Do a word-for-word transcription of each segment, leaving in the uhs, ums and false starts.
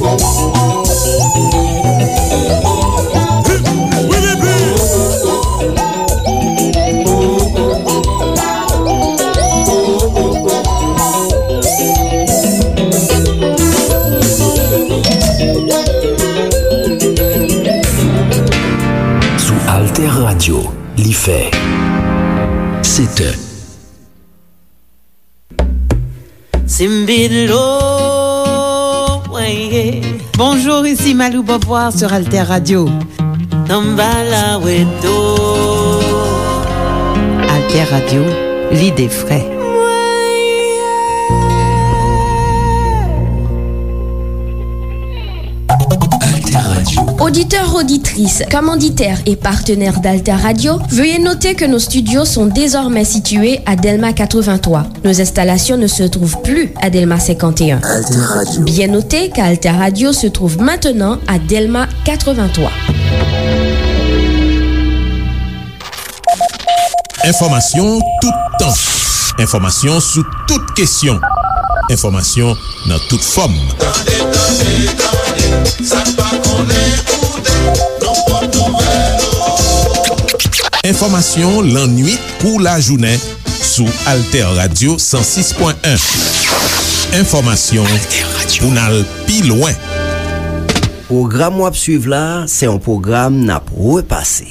Sou Alter Radio, li fè sèt è. Simbilo, weye. Bonjour, ici Malou Beauvoir sur Alter Radio. Tambala weto. Alter Radio, l'idée frais. Alter Radio. Auditeurs, auditrices, commanditaires et partenaires d'Alter Radio, veuillez noter que nos studios sont désormais situés à Delma quatre-vingt-trois. Nos installations ne se trouvent plus à Delma cinquante et un. Alter Radio. Bien noter qu'Alter Radio se trouve maintenant à Delma quatre-vingt-trois. Enfòmasyon toutan. Enfòmasyon sou tout kesyon. Enfòmasyon nan tout fòm. Tande, tande, tande, sa n pa konnen koute, nou pot nouvèl. Enfòmasyon lannwit kou lajounen sou Alter Radio san sis pwen en. Enfòmasyon pou n al pi lwen. Pwogram w ap swiv la, se yon pwogram n ap repase.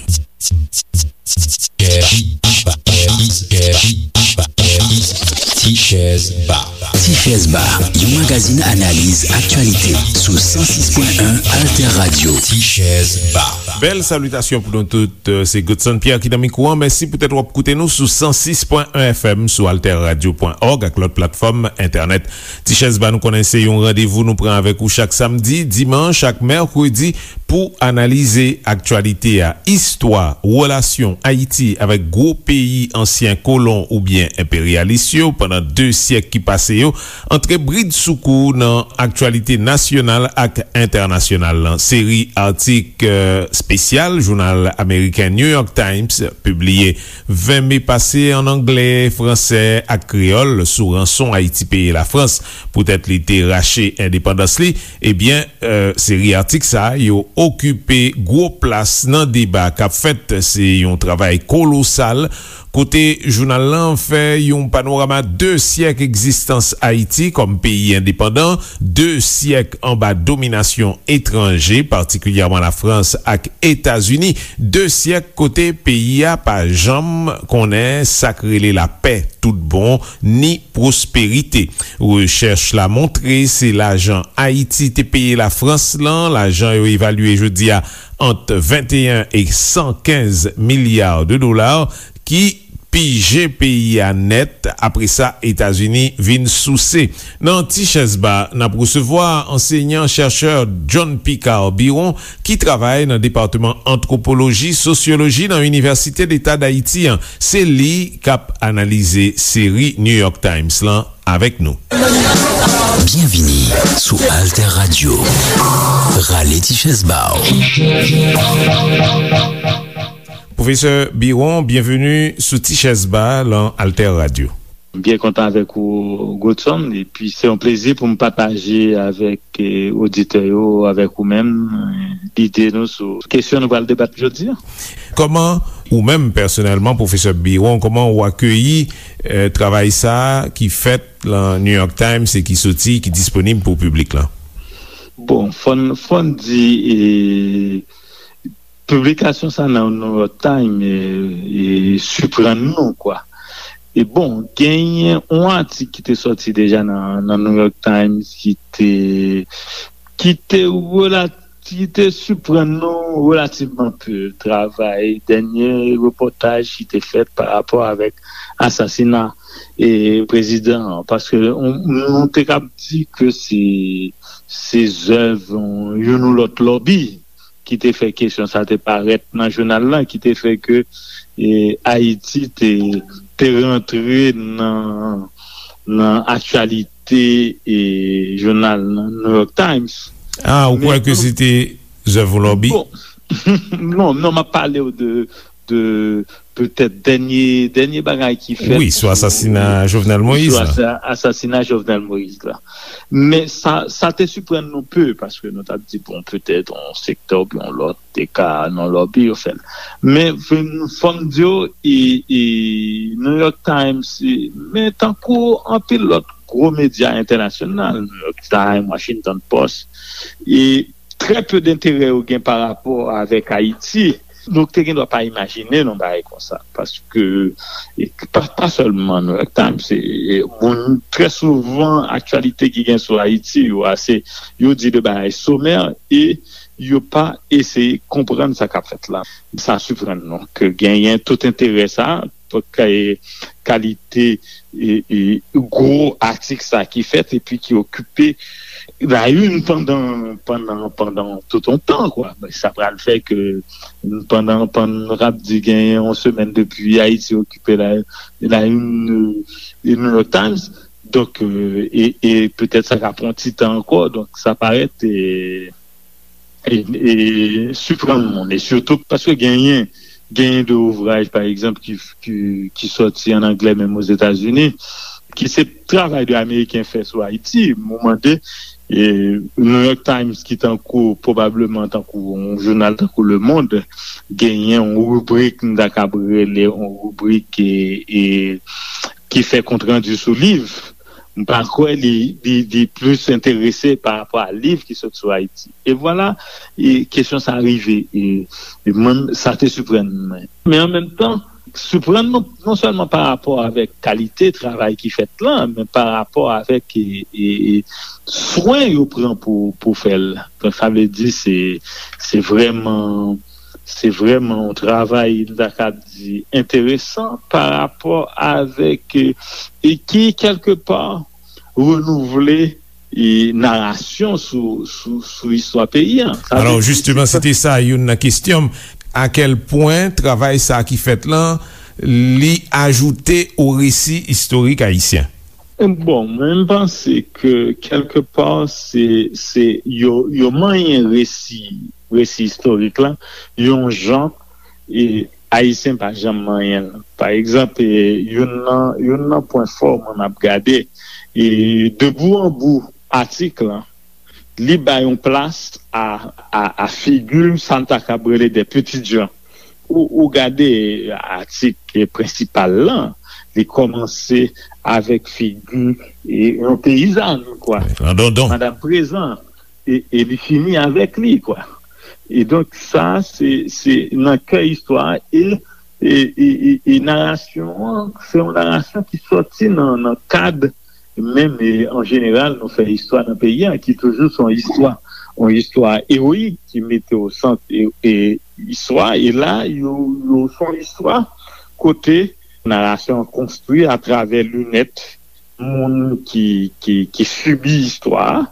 Tichèz Ba. Tichèz Ba, yon magazin analiz aktyalite sou san sis pwen en Alter Radio. Tichèz Ba. Bèl salitasyon pou nou tout. Se Godson Pierre ki nan mikwo an. Mèsi poutèt w ap koute nou sou san sis pwen en F M, sou alter radio pwen org ak lòt platfòm entènèt. Tichèz Ba, nou konnen se yon randevou nou pran avèk ou chak samdi, dimanch ak mèkredi pou analize aktyalite a, istwa, relasyon Ayiti avèk gwo peyi ansyen kolon oubyen enperyalis yo pandan de syèk ki pase yo, antre bridsoukou nan aktyalite nasyonal ak entènasyonal lan. Seri atik, eh, espesyal jounal ameriken New York Times pibliye ven me pase ann anglè, fransè ak kreyòl sou ranson Ayiti peye Lafrans poutèt li te rache endepandans li, ebyen, eh, seri atik sa a yo okipe gwo plas nan deba k ap fèt. Se yon travay kolosal kote jounal lan fè yon panorama de syèk egzistans Ayiti kòm peyi endepandan, de syèk anba dominasyon etranje, patikilyèman Lafrans ak Etazini, de syèk kote peyi a pa janm konnen sa k rele lapè tout bon, ni pwosperite. Rechèch la montre se lajan Ayiti te peye Lafrans lan, lajan yo evalye jodi a ant venteyen e san kenz milya de dola, ki pije peyi a nèt. Apre sa, Etazini vin souse. Nan Tichèz Ba, n ap resevwa ansenyan chèchè John Picard Biron, ki travay nan depatman antwopoloji, sosyoloji nan Inivèsite Deta Dayiti an. Se li k ap analize seri New York Times lan avèk nou. Byenvini sou Alter Radio. Rale ti chèz ba w. Pwofesè Biron, byenveni sou Ti Chèz Ba lan Alter Radio. M byen kontan avèk ou, Godson, epi se yon plezi pou m pataje avèk, eh, oditè yo, avèk ou menm, eh, lide nou sou kesyon nou pral debat jodi a. Kòman ou menm pèsonèlman, Pwofesè Biron, kòman ou akeyi, eh, travay sa a ki fèt lan New York Times e ki soti, ki disponib pou piblik lan? Bon, fò n, fò n di, eh, piblikasyon sa nan New York Times, e, e, siprann nou, kwa. E bon, genyen yon atik ki te sòti deja nan, nan New York Times ki te, ki te rela-, ki te siprann nou relativman pe. Travay, dènye repòtaj ki te fèt pa rapò avèk asasina, e, prezidan an. Paske nou, nou te kab di ke se, se zèv, e, youn ou lòt lòbi ki te fè kesyon sa te parèt nan jounal lan, ki te fè ke, e, Ayiti te, te rantre nan, nan aktyalite, e, jounal nan New York Times. Ah, ou kwè ke se te zèv yon lòbi? Bon, non, non, m ap pale w de, de, petèt dènye, dènye bagay ki fèt wi, sou asasina Jovenel Moïse la. Sou asasina Jovenel Moïse la. Men sa, sa te siprann nou pe, paske nou t ap di, bon, petèt yon sektè oubyen yon lòt te ka nan lòbi yo fè l. Men fò m di w, e, e, New York Times, e, men tankou anpil lòt gwo medya entènasyonal, New York Times, Washington Post, e trè pe denterè yo gen pa rapò avèk Ayiti. Nou te gen dwa pa imajine yon bagay konsa, paske e pa, pa sèlman New York Times, se e, moun trè souvan aktyalite ki gen sou Ayiti, yo ase, yo di de bagay somè e yo pa eseye konprann sa k ap fèt la. Sa siprann nou ke genyen tout enterè sa, pou kay- kalite e, e, gwo atik sa ki fèt epi ki okipe la une pandan, pandan, pandan tout yon tan, kwa. Sa pral fè ke pandan, pandan nou t ap di genyen yon semèn depi Ayiti okipe la, la une, e, New York Times, donk, e, e, e petèt sa ka pran ti tan ankò, donk sa parèt, e, e, e siprann moun, e sitou paske genyen, genyen de ouvraj, pa egzanp, ki, ki, ki sòti an anglè menm Ozetazini, ki se travay de Ameriken fè sou Ayiti. Mwen mande, e, New York Times, ki tankou, pwobableman tankou yon jounal tankou Le Monde, genyen yon ribrik, m ta kab rele yon ribrik, e, e, ki fè kontrandi sou liv. M pa kwè li, li, li plis enterese pa rapò a liv ki sot sou Ayiti. E vwala, e kesyon sa rive. E, e mwen, sa te siprann mwen. Men an menm tan, siprann nou non sèlman pa rapò avèk kalite travay ki fèt lan, men pa rapò avèk e, e, e swen yo pran pou, pou fè l. Donk, sa vle di se, se vrèman, se vrèman yon travay, m ta kab di, enteresan pa rapò avèk, e, e ki, kèlkepa, renouvle e, narasyon sou, sou, sou istwa peyi a. Sa vle Alò, di, jisteman, se te sa youn nan kesyon m. A kèl pwen travay sa ki fèt lan, li ajoute o resi istorik ayisyen? Bon, mwen, m panse ke kèlkepa, se, se yo, yo manyen resi, resi istorik la, yon jan, e, Ayisyen pa janm manyen l. Pa egzanp, e, youn nan, youn nan pwen fò mwen m ap gade, e, de bout an bout atik lan, li bay yon plas a, a, a figi sa n ta kab rele des petites gens. Ou, ou gade atik prensipal lan, li kòmanse avèk figi, e, yon peyizàn, kwa. An dondon. Madanm Prezan. E, e li fini avèk li, kwa. E donk, sa, se, se nan kè istwa a, e, e, e, e, e narasyon an, se yon narasyon ki sòti nan, nan kad, menm, e, an jeneral, nou fè istwa nan peyi a, ki toujou se yon istwa, yon istwa ewoyik, ki mete o sant, e, e, istwa, e la, yo, yo, se yon istwa kote narasyon an konstwi atravè linèt moun ki, ki, ki sibi istwa a,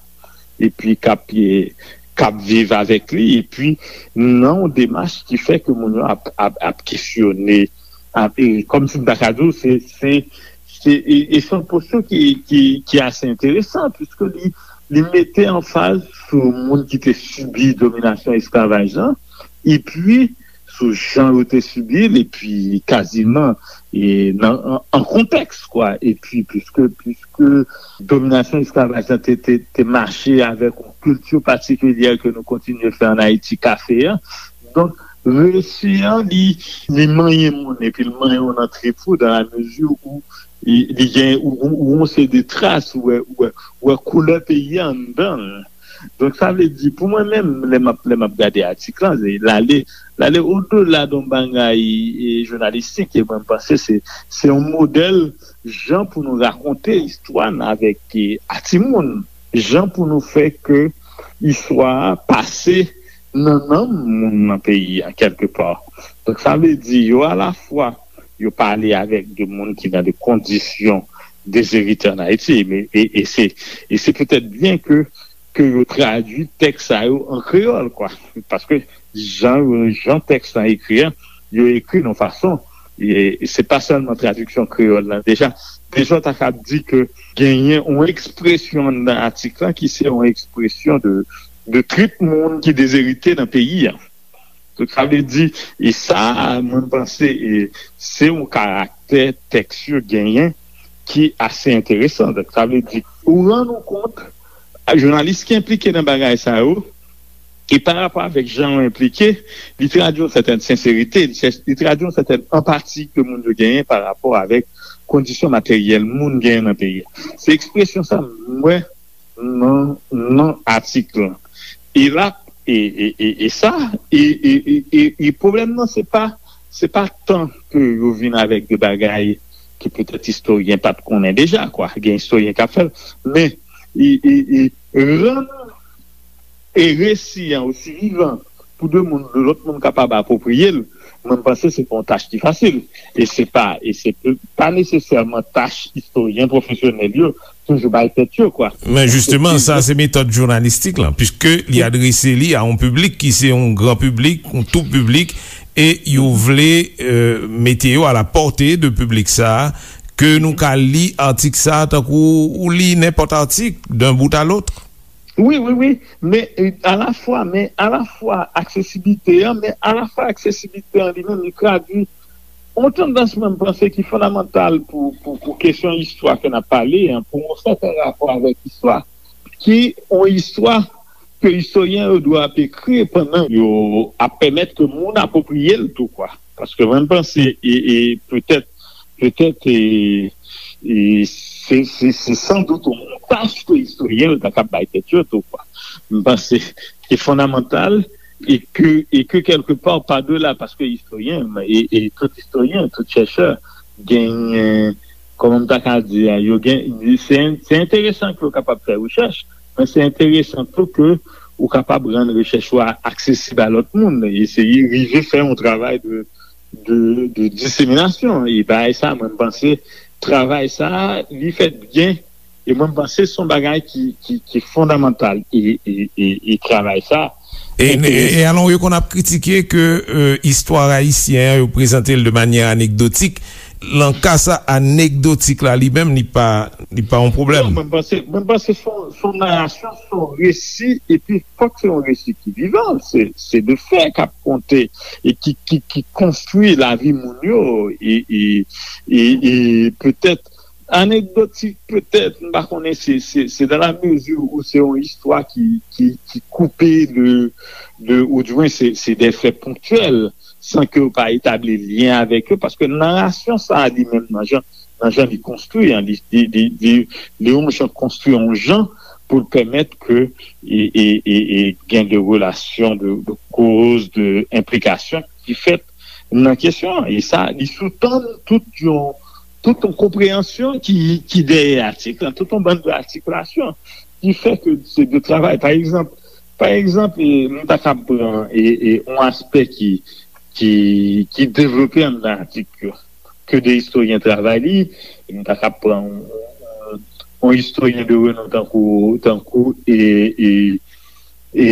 epi k ap, e, k ap viv avèk li, epi nan yon demach ki fè ke moun yo ap, ap, ap kesyone, ap, e, kòmsi m ta ka di w, se, se, se, e, e se yon posyon ki, ki, ki ase enteresan, piske li, li mete anfaz sou moun ki te sibi dominasyon esklavaj lan, epi sou jan yo te sibi l, epi kaziman, e, nan, an, an kontèks, kwa. Epi, piske, piske dominasyon esklavaj lan te, te, te mache avèk yon kilti patikilyè ke nou kontinye fè ann Ayiti, kafe a. Donk, resi an, li, li manyen moun, epi l manyen w nan trip ou, dans la mesure où li, li gen, ou, ou, ou yon seri de tras, ou wè, ou wè, ou wè koulè peyi a anndan l. Donk, sa vle di, pou mwen menm, lè m ap, lè m ap gade atik lan, se, l ale, l ale odela de yon bagay, e, jounalistik, e mwen, m panse se, se yon modèl jan pou nou rakonte istwa n avèk, e, a timoun, jan pou nou fè ke istwa a pase nan nanm moun nan peyi a, kèlkepa. Donk, sa vle di, yo alafwa, yo pale avèk de moun ki nan de kondisyon dezerite ann Ayiti, men, e, e se, e se petèt byen ke, ke yo tradui tèks sa yo an kreyòl, kwa. Paske jan, jan tèks lan ekri an, yo ekri nan fason, e, e se pa sèlman tradiksyon kreyòl lan. Deja, deja, w ta kab di ke genyen yon ekspresyon anndan atik lan ki se yon ekspresyon de, de trit moun ki dezerite nan peyi a. Donk, sa vle di, e sa, mwen, m panse, e, se yon karaktè tèks yo genyen ki ase enteresan. Donk, sa vle di, ou rann ou kont, jounalis ki enplike nan bagay sa yo, e pa rapò avèk jan yo enplike, li tradui yon sètèn senserite, li chèch, li tradui yon sètèn anpati ke moun yo genyen pa rapò avèk kondisyon materyèl moun genyen nan peyi a. Se ekspresyon sa m wè nan, nan atik lan. E la, e, e, e, e sa, e, e, e, e, e pwoblèm nan, se pa, se pa tan ke yo vin avèk de bagay ke petèt istoryen pa t konnen deja, kwa. Gen istoryen k ap fè l, men e, e, e rann e resi an osi vivan pou de moun, de lòt moun kapab apwopriye l, mwen, m panse se pa yon tach ki fasil. E se pa, e se pa nesesèman tach istoryen pwofesyonèl yo toujou bay tèt yo, kwa. Men jisteman, sa se metòd jounalistik lan, piske li adrese li a yon piblik ki se yon gran piblik, yon tou piblik, e yo vle, euh, mete yo a la pòte de piblik sa a, ke nou ka li atik sa a tankou ou li nenpòt atik, d'un bout à l'autre. Wi, wi, wi. Men, euh, alafwa, men alafwa aksesibilite an, men alafwa aksesibilite an li menm, li tradui yon tandans, mwen, m panse, ki fondamantal pou, pou, pou kesyon istwa ke n ap pale an, pou yon sèten rapò avèk istwa, ki yon istwa ke istoryen yo dwe ap ekri pandan yo ap pèmèt ke moun apwopriye l tou, kwa. Paske mwen, m panse, e, e petèt, petèt, e, e se, se, se san dout yon tach ke istoryen yo ta kab bay tèt yo tou, kwa. M panse se fondamantal e ke, e ke kèlke pa, pa de la, paske istoryen, e, e tout istoryen, tout chèchè, genyen, kòman m ta ka di a, yo gen, se, se enteresan ke yo kapab fè rechèch, men se enteresan tou ke ou kapab rann rechèch ou a aksesib a lòt moun, eseye rive fè yon travay de, de, de diseminasyon. E bagay sa, mwen, m panse, travay sa, li fèt byen, e mwen, m panse se yon bagay ki, ki, ki fondamantal. E, e, e, e travay sa, E, e, e alon, yo konn ap kritike ke, euh, istwa ayisyen an, yo prezante l de manyè anekdotik. Nan ka sa, anekdotik la li menm, li pa, li pa yon pwoblèm. Non, mwen panse, mwen panse se yon, se yon narasyon, se yon resi, epi fòk se yon resi ki vivan. Se, se de fè k ap konte e ki, ki, ki konstwi lavi moun yo, e, e, e, e petèt anekdotik, petèt, m pa konnen, se, se, se dans la mesure où se yon istwa ki, ki, ki koupe de, de, ou di mwen se, se de fè ponktyèl, san ke yo pa etabli lyen avèk yo, paske narasyon sa a li menm nan jan, nan jan li konstwi an, li, li, li, li, li yon jan konstwi yon jan pou l pèmèt ke e, e, e, e gen de relasyon, de, de koz, de enplikasyon ki fèt nan kesyon an. E sa, li soutann tout yon, tout yon konpreyansyon ki, ki dèyè atik lan, tout yon bann de atikilasyon ki fè ke se de travay. Pa egzanp, pa egzanp, e, nou ta kab pran e, e, yon aspè ki, ki, ki devlope anndan atik yo, ke de istoryen travay li, e nou ta kab pran yon, yon, yon istoryen de renon tankou, tankou e, e, e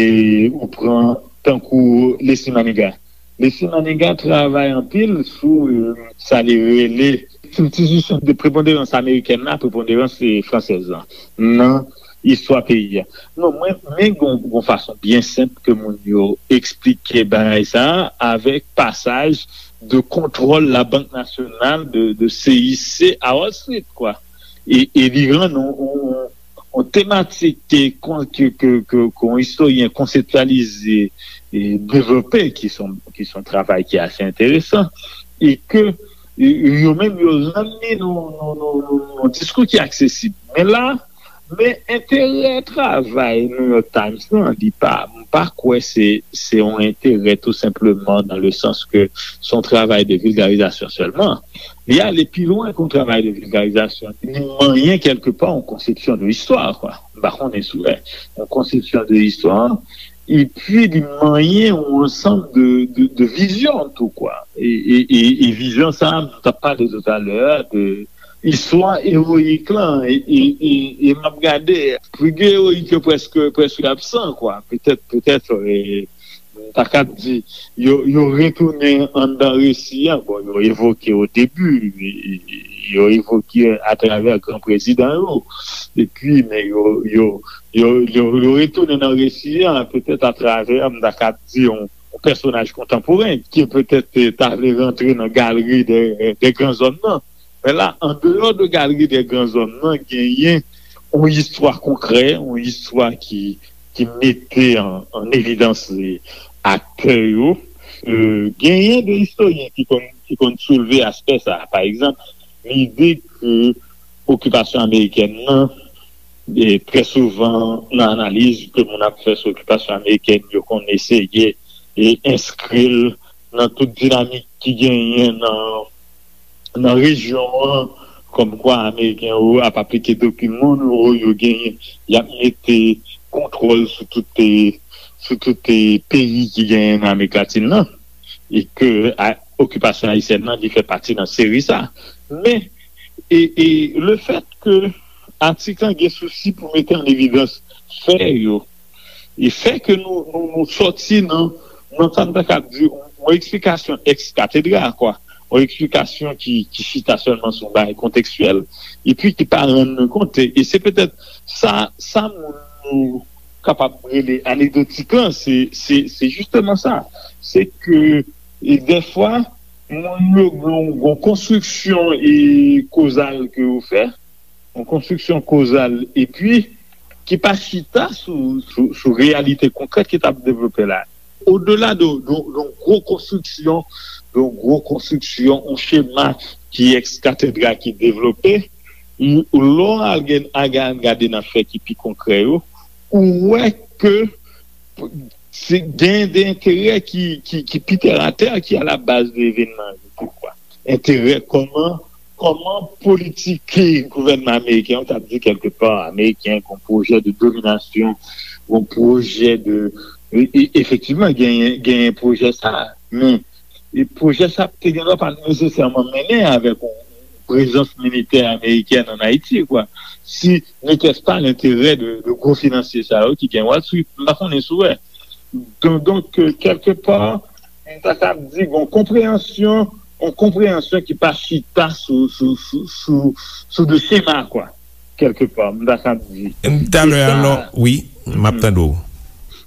ou pran tankou Leslie Manigat. Leslie Manigat travay anpil sou, e, sa li rele kiltirizasyon de preponderans amerikèn la, preponderans, e, fransèz la nan istwa peyi a. Non, mwen, men gon, gon fason byen senp ke moun yo eksplike bagay sa a avèk pasaj de kontwòl Labank Nasyonal de, de C I C a Wall Street, kwa. E, e li rann yon, yon, yon tematik ke, ke, ke, ke, ke yon istoryen konseptyalize e devlope, ki se yon, ki se yon travay ki ase enteresan, e ke e, yo menm yo rann li nan, nan, nan, nan, nan diskou ki aksesib. Men la, men enterè travay New York Times lan, li pa, m pa kwè se, se yon enterè tou senpleman dans le sens que se yon travay de vilgarizasyon sèlman. Li ale pi lwen ke yon travay de vilgarizasyon. Li manyen kèlke pa yon konsepsyon de istwa, kwa. M pa konnen si w wè. Yon konsepsyon de istwa, epi li manyen yon ansanm de, de, de vizyon tou, kwa. E, e, e, e vizyon sa a, m t ap pale toutalè a de istwa ewoyik lan, e, e, e, e m ap gade figi ewoyik yo prèske, prèske absan, kwa. Petèt, petèt, e, m ta kab di, yo, yo retounen anndan resi a. Bon, yo evoke o debi, e, e, yo evoke atravè gran prezidan yo. Epi, men yo, yo, yo, yo, yo retounen nan resi a, petèt atravè, m ta kab di, yon, yon pèsonaj kontanporen ki petèt ta vle rantre nan galri de, de gran zòm nan. Men la, andeyò de galri de gran zòm nan, genyen yon istwa konkrè, yon istwa ki, ki mete an, an evidans aktè yo. Euh, genyen de istoryen ki konn, ki konn soulve aspè sa a. Pa egzanp, lide ke okipasyon amerikèn nan, e trè souvan nan analiz ke moun ap fè sou okipasyon amerikèn, yo konn eseye e enskri l nan tout dinamik ki genyen nan, nan rejyon an, kòmkwa Ameriken yo ap aplike doktrin Monroe, yo genyen, y ap mete kontwòl sou tout, sou tout peyi ki genyen nan Amerik Latin nan, e ke a, okipasyon ayisyèn nan, li fè pati nan seri sa. Men, e, e lefèt ke atik lan gen sousi pou mete an evidans fè yo, e fè ke nou, nou, nou sòti nan, nan sa n ta kab di, yon eksplikasyon ex cathedra, kwa. Yon eksplikasyon ki, ki chita sèlman sou yon bagay kontekstyèl, epi ki pa rann nou kont. E, e se petèt sa, sa moun yo kapab rele anekdotik lan, se, se, se jisteman sa. Se ke, e dèfwa, moun yo gon, gon konstriksyon e kozal ke yo fè, yon konstriksyon kozal, epi ki pa chita sou, sou, sou reyalite konkrèt ki t ap devlope la. Odela de, de, de yon gwo konstriksyon, de yon gwo konstriksyon, yon chema ki ex cathedra ki devlope, lè w al gen, al gade nan fè ki pi konkrè yo, ou wè ke se gen de enterè ki, ki, ki pi tèratè, ki a la baz de evènman yo tou, kwa. Enterè kòman, kòman politik gouvènman ameriken an, ta di kèlkepa, ameriken, gon pwojè de dominasyon, gon pwojè de, e, e, efektivman, genyen, genyen pwojè sa, men, e pwojè sa te gen dwa pa nesesèman mennen avèk yon prezans militè amerikèn an Ayiti, kwa. Si n'était pas l'intérêt de, de gwo finansye sa yo ki gen Wall Street, m pa konnen si w wè. Donk, donk, euh, kèlkepa, m ta kab di, gon konpreyansyon, yon konpreyansyon ki pa chita sou, sou, sou, sou, sou de chema, kwa. Kèlkepa, m ta kab di. Talè, alò, wi, m ap tande w.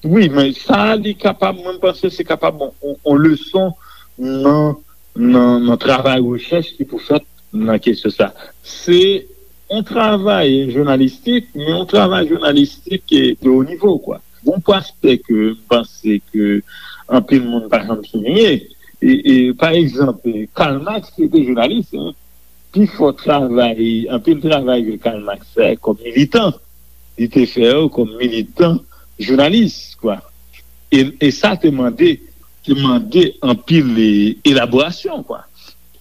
Wi, men sa, li kapab, mwen, m panse se kapab yon, yon, yon leson nan, nan, nan travay rechèch ki pou fèt nan kesyon sa. Se yon travay jounalistik, men yon travay jounalistik de wo nivo, kwa. Gon aspè ke m panse ke anpil moun pa janm souliye. E, e, pa egzanp, Karl Marx, se te jounalis, hein. Pi fò travay, anpil travay ke Karl Marx fè kòm militan, li te fè yo kòm militan jounalis, kwa. E, e sa te mande, te mande anpil, e, elaborasyon, kwa.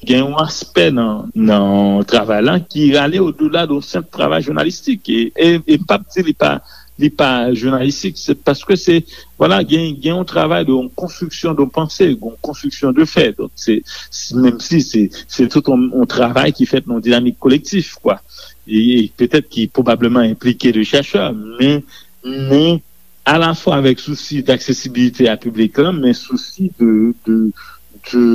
Gen yon aspè nan, nan travay la ki rale odela de yon senp travay jounalistik. E, e, e m p ap di li pa, li pa jounalistik, se paske se, vwala, gen, gen yon travay de yon konstriksyon de panse, yon konstriksyon de fè. Donk, se, se, menm si se, se tout yon, yon travay ki fèt nan yon dinamik kolektif, kwa. E, e petèt ki pwobableman enplike de chèchè, men, men alafwa avèk sousi d'aksesibilite a piblik lan, men sousi de, de, de,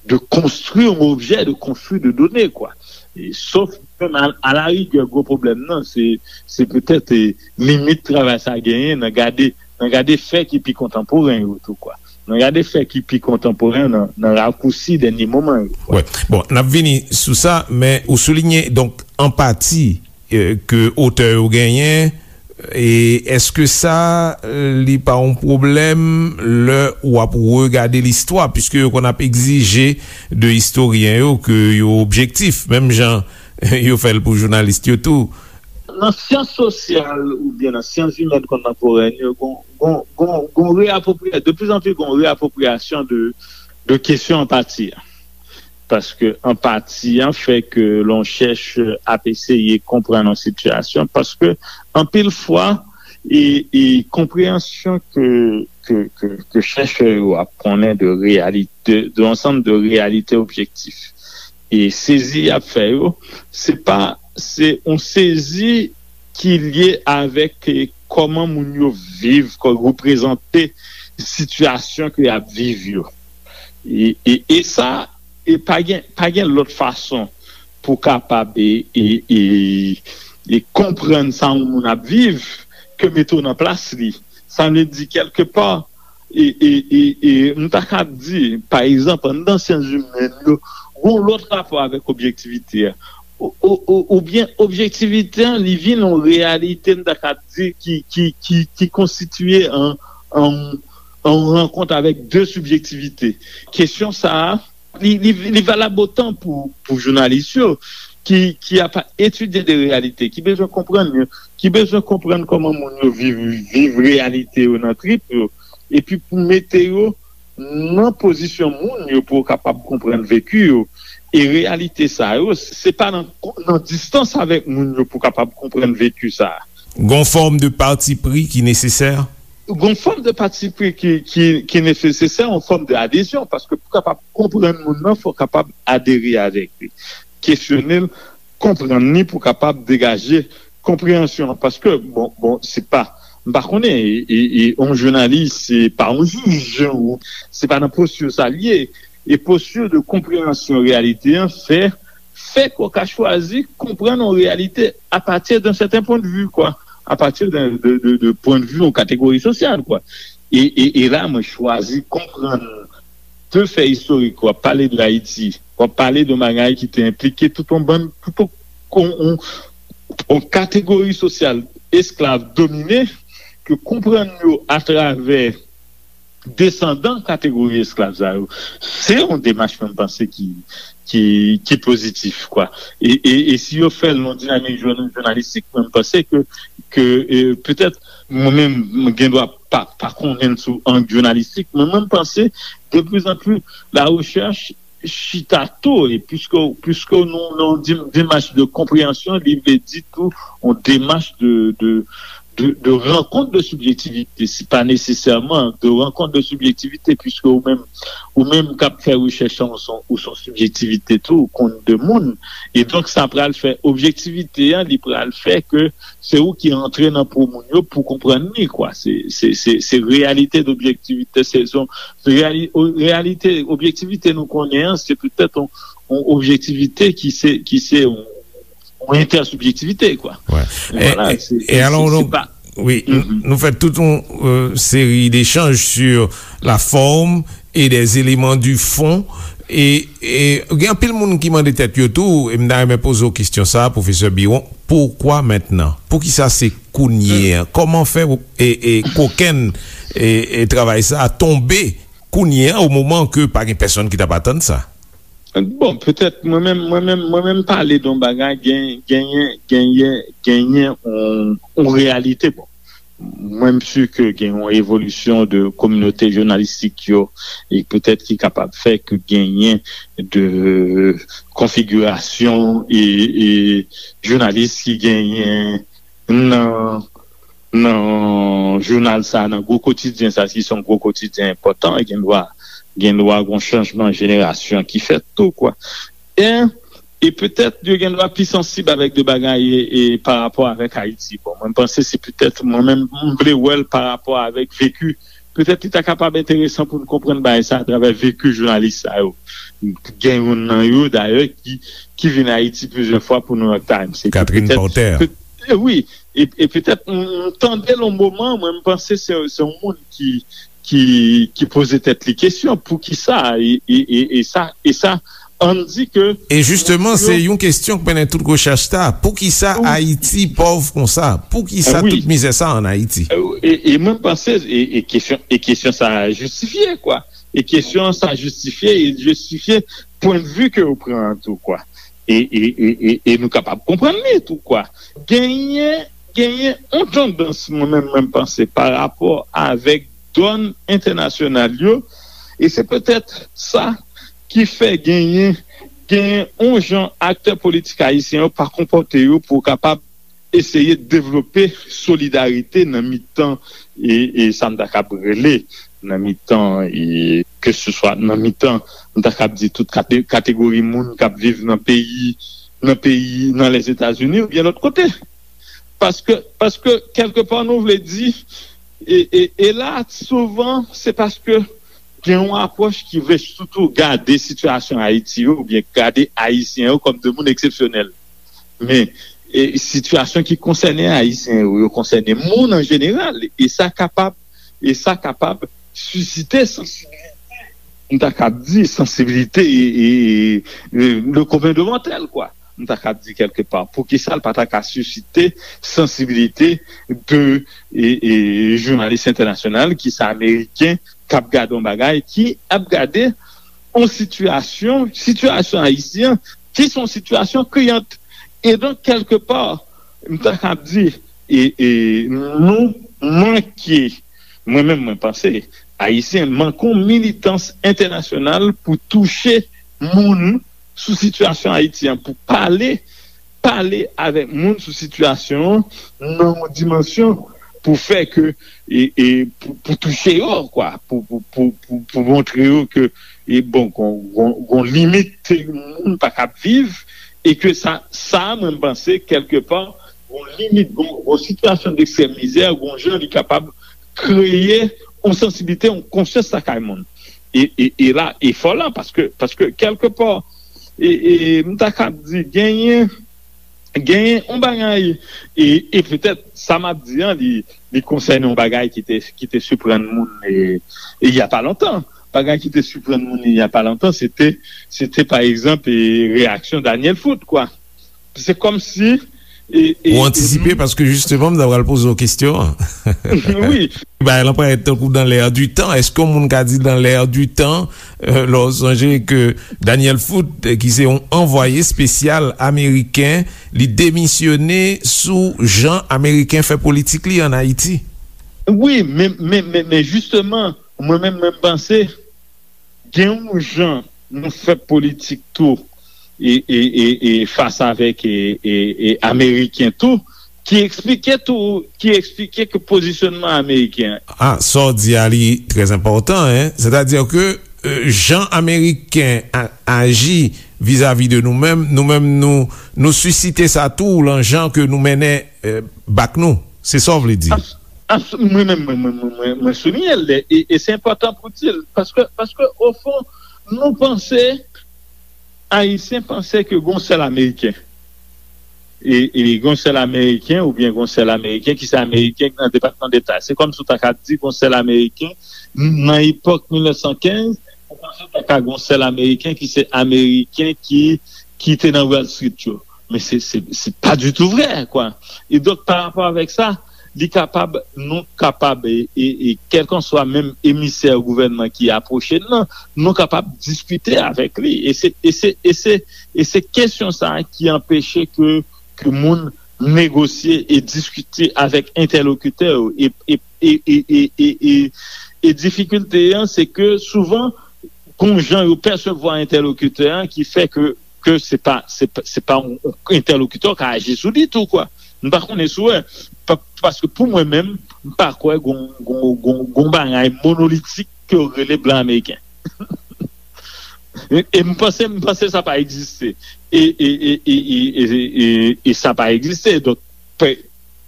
de konstwi yon objè, de konstwi de done, kwa. E, sof menm a, a la rigè, gwo pwoblèm nan, se, se petèt, e, limit travay sa genyen nan gade, nan gade fè ki pi kontanporen yo tou, kwa. Nan gade fè ki pi kontanporen nan, nan rakousi dènye moman yo, kwa. Wè. Bon, n ap vini sou sa, men ou souliye, donk, anpati, e, ke otè yo genyen, e èske sa, e, li pa yon pwoblèm lè w ap regade listwa, piske yo konn ap egzije de istoryen yo ke yo objektif, menm jan yo fè l pou jounalis yo tou? Nan syans sosyal oubyen nan syans imèn kontanporèn yo, gon, gon, gon, gon reapwopriya-, de plus en plus gon reapwopriyasyon de, de kesyon anpati a. Paske anpati an fè ke lè yon chèchè ap eseye konprann yon sitiyasyon, paske anpil fwa, e, e konpreyansyon ke, ke, ke, ke chèchè yo ap konnen de reyalite, de ansanm de reyalite objektif. E sezi y ap fè yo, se pa, se yon sezi ki lye avèk, e, kòman moun yo viv, kò-, reprezante sitiyasyon ke y ap viv yo. E, e, e sa, e pa gen, pa gen lòt fason pou kapab e, e, e, e konprann sa yon moun ap viv ke mete w nan plas li. Sa vle di, kèlkepa, E, e, e, e m ta kab di, pa egzanp, anndan syans imèn yo, gon lòt rapò avèk objektivite a. Ou, ou, ou, oubyen objektivite an, li vin yon reyalite, m ta kab di, ki, ki, ki, ki konstitye an, an, an rankont avèk de sibjektivite. Kesyon sa a, li, li, li valab otan pou, pou jounalis yo ki, ki ap etidye de reyalite, ki bezwen konprann yo, ki bezwen konprann kòman moun yo viv, viv reyalite yo nan trip yo, epi pou mete yo nan pozisyon moun yo pou yo kapab konprann veki yo. E reyalite sa yo, se pa nan, nan distans avèk moun yo pou kapab konprann veki sa a. Gon fòm de pati pri ki nesesè? Gon fòm de pati pri ki, ki, ki nesesè, yon fòm de adezyon, paske pou kapab konprann moun nan, fò kapab adere avèk li, kesyone l, konprann li pou kapab degaje konpreyansyon an. Paske, bon, bon, se pa, m pa konnen, e, e, e, yon jounalis, se pa yon jij, ou, se pa nan posti sa l ye. E posti de konpreyansyon reyalite an fè, fè ke w ka chwazi konprann yon reyalite apati de sèten pwen de vi, kwa, apati de, de, de, de pwen de vi yon kategori sosyal, kwa. E, e, e la, mwen chwazi konprann de fè istorik, w ap pale de Ayiti, w ap pale de yon bagay ki te enplike tout yon bann, tout yon, yon, yon kategori sosyal esklav domine, ke konprann yo atravè desandan kategori esklav sa yo, se yon demach mwen panse ki, ki, ki pozitif, kwa. E, e, e si yo fè l nan dinamik jounalis, jounalistik, mwen panse ke, ke e, petèt, mwen menm, mwen gen dwa pa, pa konnen sou ang jounalistik, men mwen panse, de plus en plus, la recherche chita tou, e piske, piske nou nan yon demach de konpreyansyon, li vle di tou yon demach de, de, de, de rankont de sibjektivite, se pa nesesèman de rankont de sibjektivite, piske ou menm, ou menm k ap fè rechèch an, ou son, ou son sibjektivite tou, ou konn de moun, e donk sa pral fè objektivite an, li pral fè ke se ou ki antre nan po moun yo pou konprann li, kwa. Se, se, se, se reyalite d'objektivite, se, se, reyali, reyalite, objektivite nou konnen an, se petèt yon, yon objektivite ki se, ki se yon, yon entèsibjektivite, kwa. Ouais. E, e, e alò, donk, wi, nou fè tout yon euh, seri d'échanges sur la forme et des éléments du fond. E, e gen anpil moun ki mande tèt yo tou, e m ta renmen poze w kesyon sa a, pwofesè Biron, poukwa mentnan? Poukisa se kounye a? Kòman fè e, e kokenn e, e travay sa a tonbe kounye a, o moman ke pa gen pèsonn ki t ap atann sa? Bon, petèt, mwen menm, mwen menm, mwen menm pale de yon bagay, gen, genyen, genyen, genyen yon, yon reyalite. Bon, mwen m si ke gen yon evolisyon de kominote jounalistik yo, e petèt ki kapab fè ke genyen de konfigirasyon e, e jounalis ki genyen nan, nan jounal sa, nan gwo kotidyen sa, si se yon gwo kotidyen enpòtan, gen dwa, gen dwa gon chanjman jenerasyon ki fèt tou, kwa. E, e petèt yo gen dwa pi sansib avèk de bagay e, e pa rapò avèk Ayiti. Bon, mwen m panse se petèt, mwen menm, m vle wè l pa rapò avèk veki. Petèt li ta kapab enteresan pou n konprann bagay sa atravè veki jounalis sa yo. Gen youn nan yo, dayè, ki, ki vin Ayiti plizyè fwa pou New York Times. Se Catherine Porter. Wi, e, e petèt, m tande l yon moman, mwen m panse se, se yon moun ki, ki, ki poze tèt li kesyon, poukisa, e, e, e, e sa, e sa, ann di ke. E jisteman, se yon kesyon k mennen tout rechèch sa, poukisa Ayiti pòv konsa? Poukisa tout mizè sa ann Ayiti? E, e mwen m panse, e, e kesyon, e kesyon sa jistifye, kwa. E kesyon sa jistifye, e jistifye pwen de vi ke yo pran an tou, kwa. E, e, e, e, e nou kapab konprann li tou, kwa. Genyen, genyen yon tandans, mwen menm, mwen m panse, pa rapò avèk dòn entènasyonal yo, e se petèt sa ki fè genyen, genyen yon jan aktè politik ayisyen yo pa konpòte yo pou kapab eseye devlope solidarite nan mitan, e, e sa m ta kab rele, nan mitan, e, ke se swa nan mitan, m ta kab di tout kate, kategori moun k ap viv nan peyi, nan peyi, nan Lèzetazini oubyen lòt kote. Paske, paske kèlkepa nou vle di, e, e, e la, souvan, se paske gen yon apwòch ki vle sitou gade sitiyasyon Ayiti yo, oubyen gade Ayisyen yo kòm de moun eksepsyonèl. Men, e, sitiyasyon ki konsène Ayisyen yo, yo konsène moun an jeneral, e sa kapab, e sa kapab sisite sansibilite, m ta kab di, sansibilite e, e, e, le commun de mortel, kwa. M ta kab di kèlke pa. Poukisa l pa ta ka sisite sansibilite de e, e, jounalis entènasyonal ki se ameriken k ap gade yon bagay, ki ap gade yon sitiyasyon, sitiyasyon ayisyen, ki se yon sitiyasyon kriyant. E donk, kèlke pa, m ta kab di, e, e, nou manke, mwen menm, mwen panse, ayisyen manke yon militans entènasyonal pou touche moun sou sitiyasyon Ayiti an, pou pale, pale avèk moun sou sitiyasyon an nan yon dimansyon pou fè ke, e, e, pou, pou touche yo, kwa, pou, pou, pou, pou, pou montre yo ke, e, bon, gon, gon, gon limit moun pa kab viv, e ke sa, sa, mwen, m panse, kèlke pa, gon limit, gon, gon sitiyasyon dekstrèm mizè, gon jan li kapab kreye yon sansibilite, yon konsyans lakay moun. E, e, e la, efò la, paske, paske kèlke pa, e, e, m ta kab di, genyen, genyen yon bagay, e, e petèt, sa m ap di an, li, li konsène yon bagay ki te, ki te siprann moun, e, e y a pa lontan. Bagay ki te siprann moun, e, y a pa lontan, se te, se te, pa egzanp, e, reyaksyon Daniel Foot, kwa. Se kòmsi, e, e, Ou antisipe, paske jisteman, m ta pral poze w kesyon an. Wi. Bagay lan parèt tankou dans l'air du temps. Èske yon moun ka di dans l'air du temps, euh, lè w sonje ke Daniel Foot, euh, ki se yon anvwaye espesyal ameriken, li demisyone sou jan ameriken fè politik li ann Ayiti? Wi, men, men, men, men jisteman, mwen menm, mwen panse, gen yon jan nou fè politik tou, e, e, e, e fas avèk, e, e, e ameriken tou, ki eksplike tou, ki eksplike ke pozisyonman ameriken an. Ah, sa w di a, li trè enpòtan, en. Sètadi ke, euh, jan ameriken a, aji vizavi de nou menm, nou menm, nou, nou sisite sa tou, lan jan ke nou mennen, euh, bak nou. Se sa w vle di? Abs-, abs-, mwen menm, mwen, mwen, mwen, mwen, mwen souliye l, e, e se enpòtan pou di l, paske, paske, ofon, nou panse Ayisyen panse ke gon sèl Ameriken. E, e gon sèl Ameriken, oubyen gon sèl Ameriken ki se Ameriken ki nan Depatman Deta. Se kòmsi w ta ka di gon sèl Ameriken nan epòk mil nèf san kenz, ou panse w ta ka gon sèl Ameriken ki se Ameriken ki, ki te nan Wall Street yo. Men se, se, se pa ditou vrè, kwa. E donk, pa rapò avèk sa, li kapab, nou kapab, e, e, e kèlkanswa menm emisè gouvènman ki apwoche n nan, nou kapab diskite avèk li. E se, e se, e se, e se kesyon sa a ki anpeche ke, ke moun negosye e diskite avèk entèlokitè yo. E, e, e, e, e, e, e, e difikilte an, se ke souvan, gon jan yo pèsevwa entèlokitè an ki fè ke, ke se pa, se pa, se pa yon, yon entèlokitè w ka aji sou li tou, kwa. M pa konnen si w wè, pa, paske pou mwen menm, m pa kwè gon, gon, gon, gon bagay monolitik ke yo rele blan ameriken. E, e m panse, m panse sa pa egziste. E, e, e, e, e, e, e, e sa pa egziste. Donk, pe-,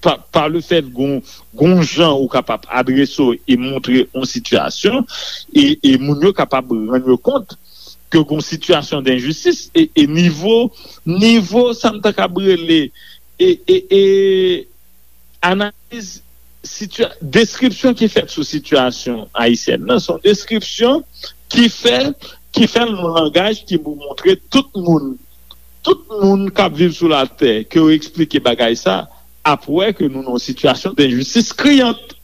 pa, pa le fèt gon, gon jan ou kapab adrese w e montre yon sitiyasyon, e, e moun yo kapab rann yo kont ke gon sitiyasyon denjistis, e, e nivo, nivo sa m ta kab rele, e, e, e analiz sitya-, deskripsyon ki fèt sou sitiyasyon ayisyèn nan, se yon deskripsyon ki fè, ki fè l nan langaj ki pou montre tout moun, tout moun k ap viv sou latè, ke yo eksplike bagay sa, ap wè ke nou nan yon sitiyasyon denjistis kriyant.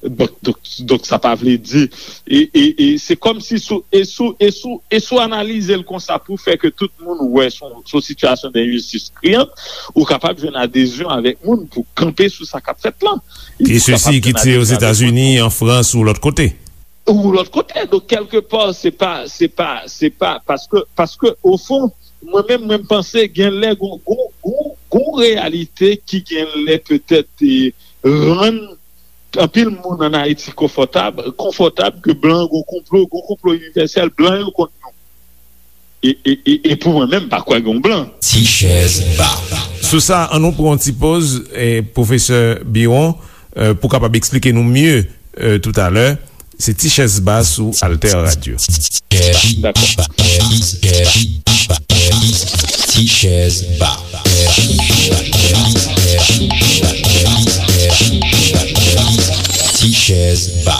Donk, donk, donk, sa pa vle di, e, e, e se kòmsi sou, e sou, e sou, e sou analize l konsa pou fè ke tout moun wè son, son sitiyasyon denjistis kriyant, ou kapab jwenn adezyon avèk moun pou kanpe sou sa k ap fèt lan. E sesi ki tire Ozetazini, an Frans ou lòt kote. Ou lòt kote. Donk, kèlke pa, se pa, se pa, se pa, paske, paske, ofon, mwen menm, mwen, m panse gen lè gon, gon, gon, gon reyalite ki gen lè petèt, e, rann anpil moun ann Ayiti konfòtab, konfòtab ke blan gon konplo, gon konplo inivèsèl, blan yo kont nou. E, e, e, e pou mwen menm, m pa kwè gon blan. Ti chèz ba. Sou sa, ann nou pran yon ti poz, e, pwofesè Biron, e, pou kapab eksplike nou mye, e, toutalè. Se Ti chèz ba sou Alter Radio. Dakò. Ti chèz ba. Ti chèz ba.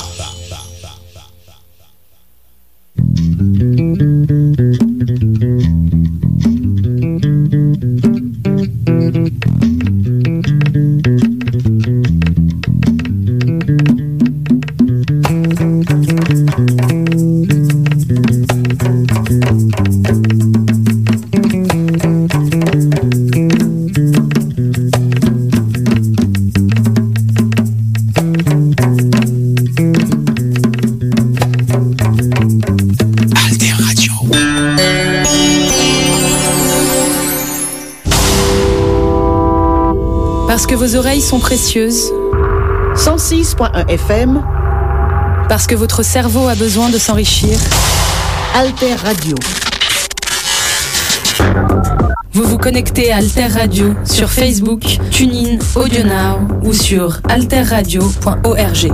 Parce que vos oreilles sont précieuses. Cent six point un F M. Parce que votre cerveau a besoin de s'enrichir. Alter Radio. Vous vous connectez à Alter Radio sur Facebook, TuneIn, AudioNow ou sur alterradio point org.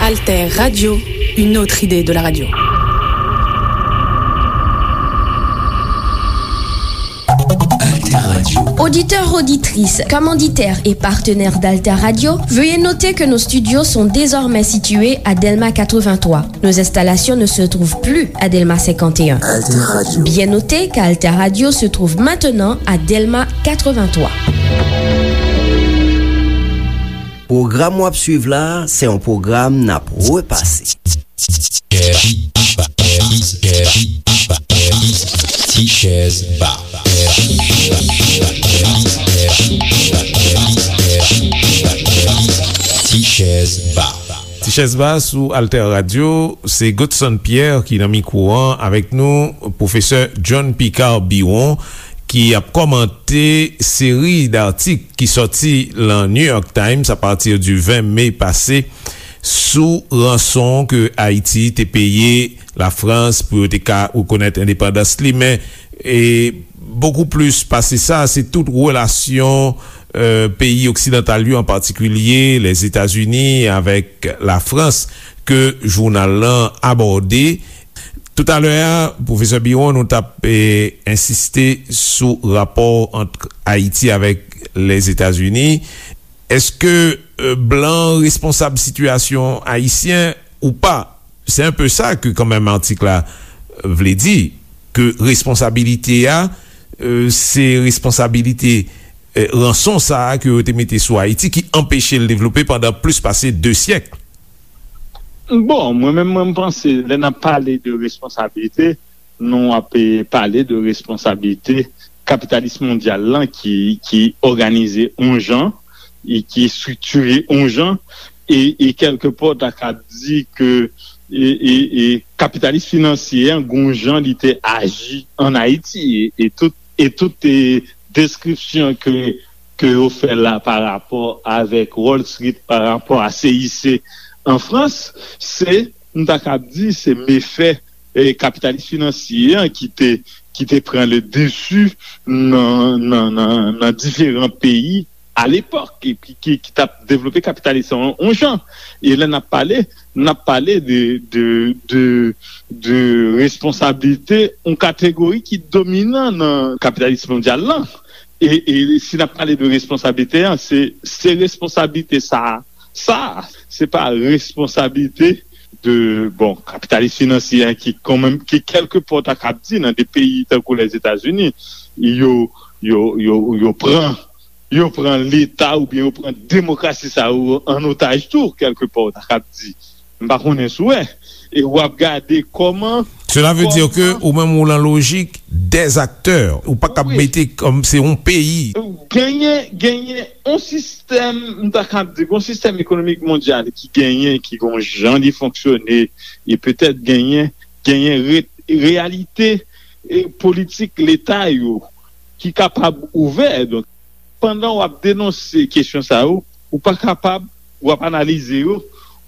Alter Radio, une autre idée de la radio. Alter Radio. Auditeurs, auditrices, commanditaires et partenaires d'Alter Radio, veuillez noter que nos studios sont désormais situés à Delma quatre-vingt-trois. Nos installations ne se trouvent plus à Delma cinquante et un. Alter Radio. Bien noter qu'Alter Radio se trouve maintenant à Delma quatre-vingt-trois. Pwogram w ap swiv la a, se yon pwogram n ap repase. Ti Chèz Ba. Ti Chèz Ba. Ti Chèz Ba sou Alter Radio, se Godson Pierre ki nan mikwo an avèk nou, pwofesè John Picard Biron, ki ap kòmante seri d atik ki sòti lan New York Times apati di ven me pase sou ranson ke Ayiti te peye Lafrans pou yo te ka rekonèt endepandans li. Men, e, bokou plis pase sa, se tout relasyon, e, peyi oksidantal yo, an patikilye Lèzetazini avèk Lafrans, ke jounal lan abòde. Toutalè a, pwofesè Biron, nou t ap, e, ensiste sou rapò ant Ayiti avèk Lèzetazini. Èske, e, blan responsab sitiyasyon ayisyen ou pa? Se enpe sa ke kanmenm atik la vle di, ke responsabilite a, e, se responsabilite, e, ranson sa a ke yo te mete sou Ayiti ki anpeche l devlope pandan plis pase de syèk. Bon, mwen menm, mwen, m panse, lè n ap pale de responsabilite, nou ap, e, pale de responsabilite kapitalis mondyal lan ki, ki òganize yon jan, e ki estriktire yon jan, e, e kèlkepò, w ta ka di ke, e, e, e kapitalis finansye an, gon jan li te aji ann Ayiti, e, e tout, e tout, e, deskripsyon ke, ke yo fè la pa rapò avèk Wall Street, pa rapò a C I C an Frans, se, m ta kab di, se mefè, e, kapitalis finansye an ki te, ki te pran le dessus nan, nan, nan, nan diferan peyi alepòk, e ki, ki, ki t ap devlope kapitalis an yon jan. E lè n ap pale, n ap pale de, de, de, de responsablite yon kategori ki dominan nan kapitalis mondyal lan. E, e si n ap pale de responsablite an, se, se responsablite sa, sa, se pa responsablite de, bon, kapitalis finansye an ki kanmenm, ki kèlkepò ta kab di nan de peyi tankou Lèzetazini, yo, yo, yo, yo pran, yo pran Leta oubyen yo pran demokrasi sa yo an otaj tou, kèlkepò, ta kab di. M pa konnen si w wè. E w ap gade kòman, Cela veut dire que kòman ou menm ou lan lojik des acteurs, ou pa kab Wi. Mete kòm se yon peyi. Genyen, genyen yon sistèm, m ta kab di, yon sistèm ekonomik mondyal ki genyen, ki gon jan li fonksyone, e petèt genyen, genyen re-, reyalite, e, politik Leta yo ki kapab ouvè. Donk, pandan w ap denonse kesyon sa yo, ou pa kapab, w ap analize yo,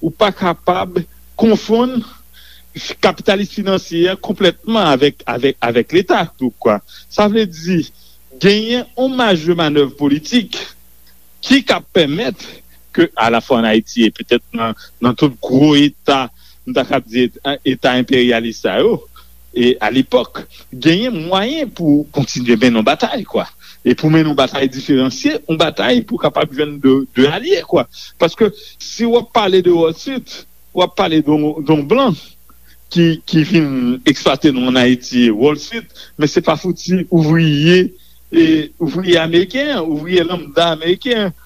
ou pa kapab konfonn kapitalis finansye a konplètman avèk, avèk, avèk Leta tou, kwa. Sa vle di, genyen yon maj de manèv politik ki ka pèmèt ke, alafwa ann Ayiti e petèt nan, nan tout gwo eta, m ta kab di eta, eta enperyalis sa yo, e alepòk, genyen mwayen pou kontinye mennen yon batay, kwa. E pou mennen yon batay diferansye, yon batay pou kapab jwenn de, de alye, kwa. Paske si w ap pale de Wall Street, w ap pale de yon, de yon blan ki, ki vin eksplwate nou ann Ayiti, Wall Street, men se pa fouti ouvriye, e, ouvriye ameriken an, ouvriye lanmda ameriken an,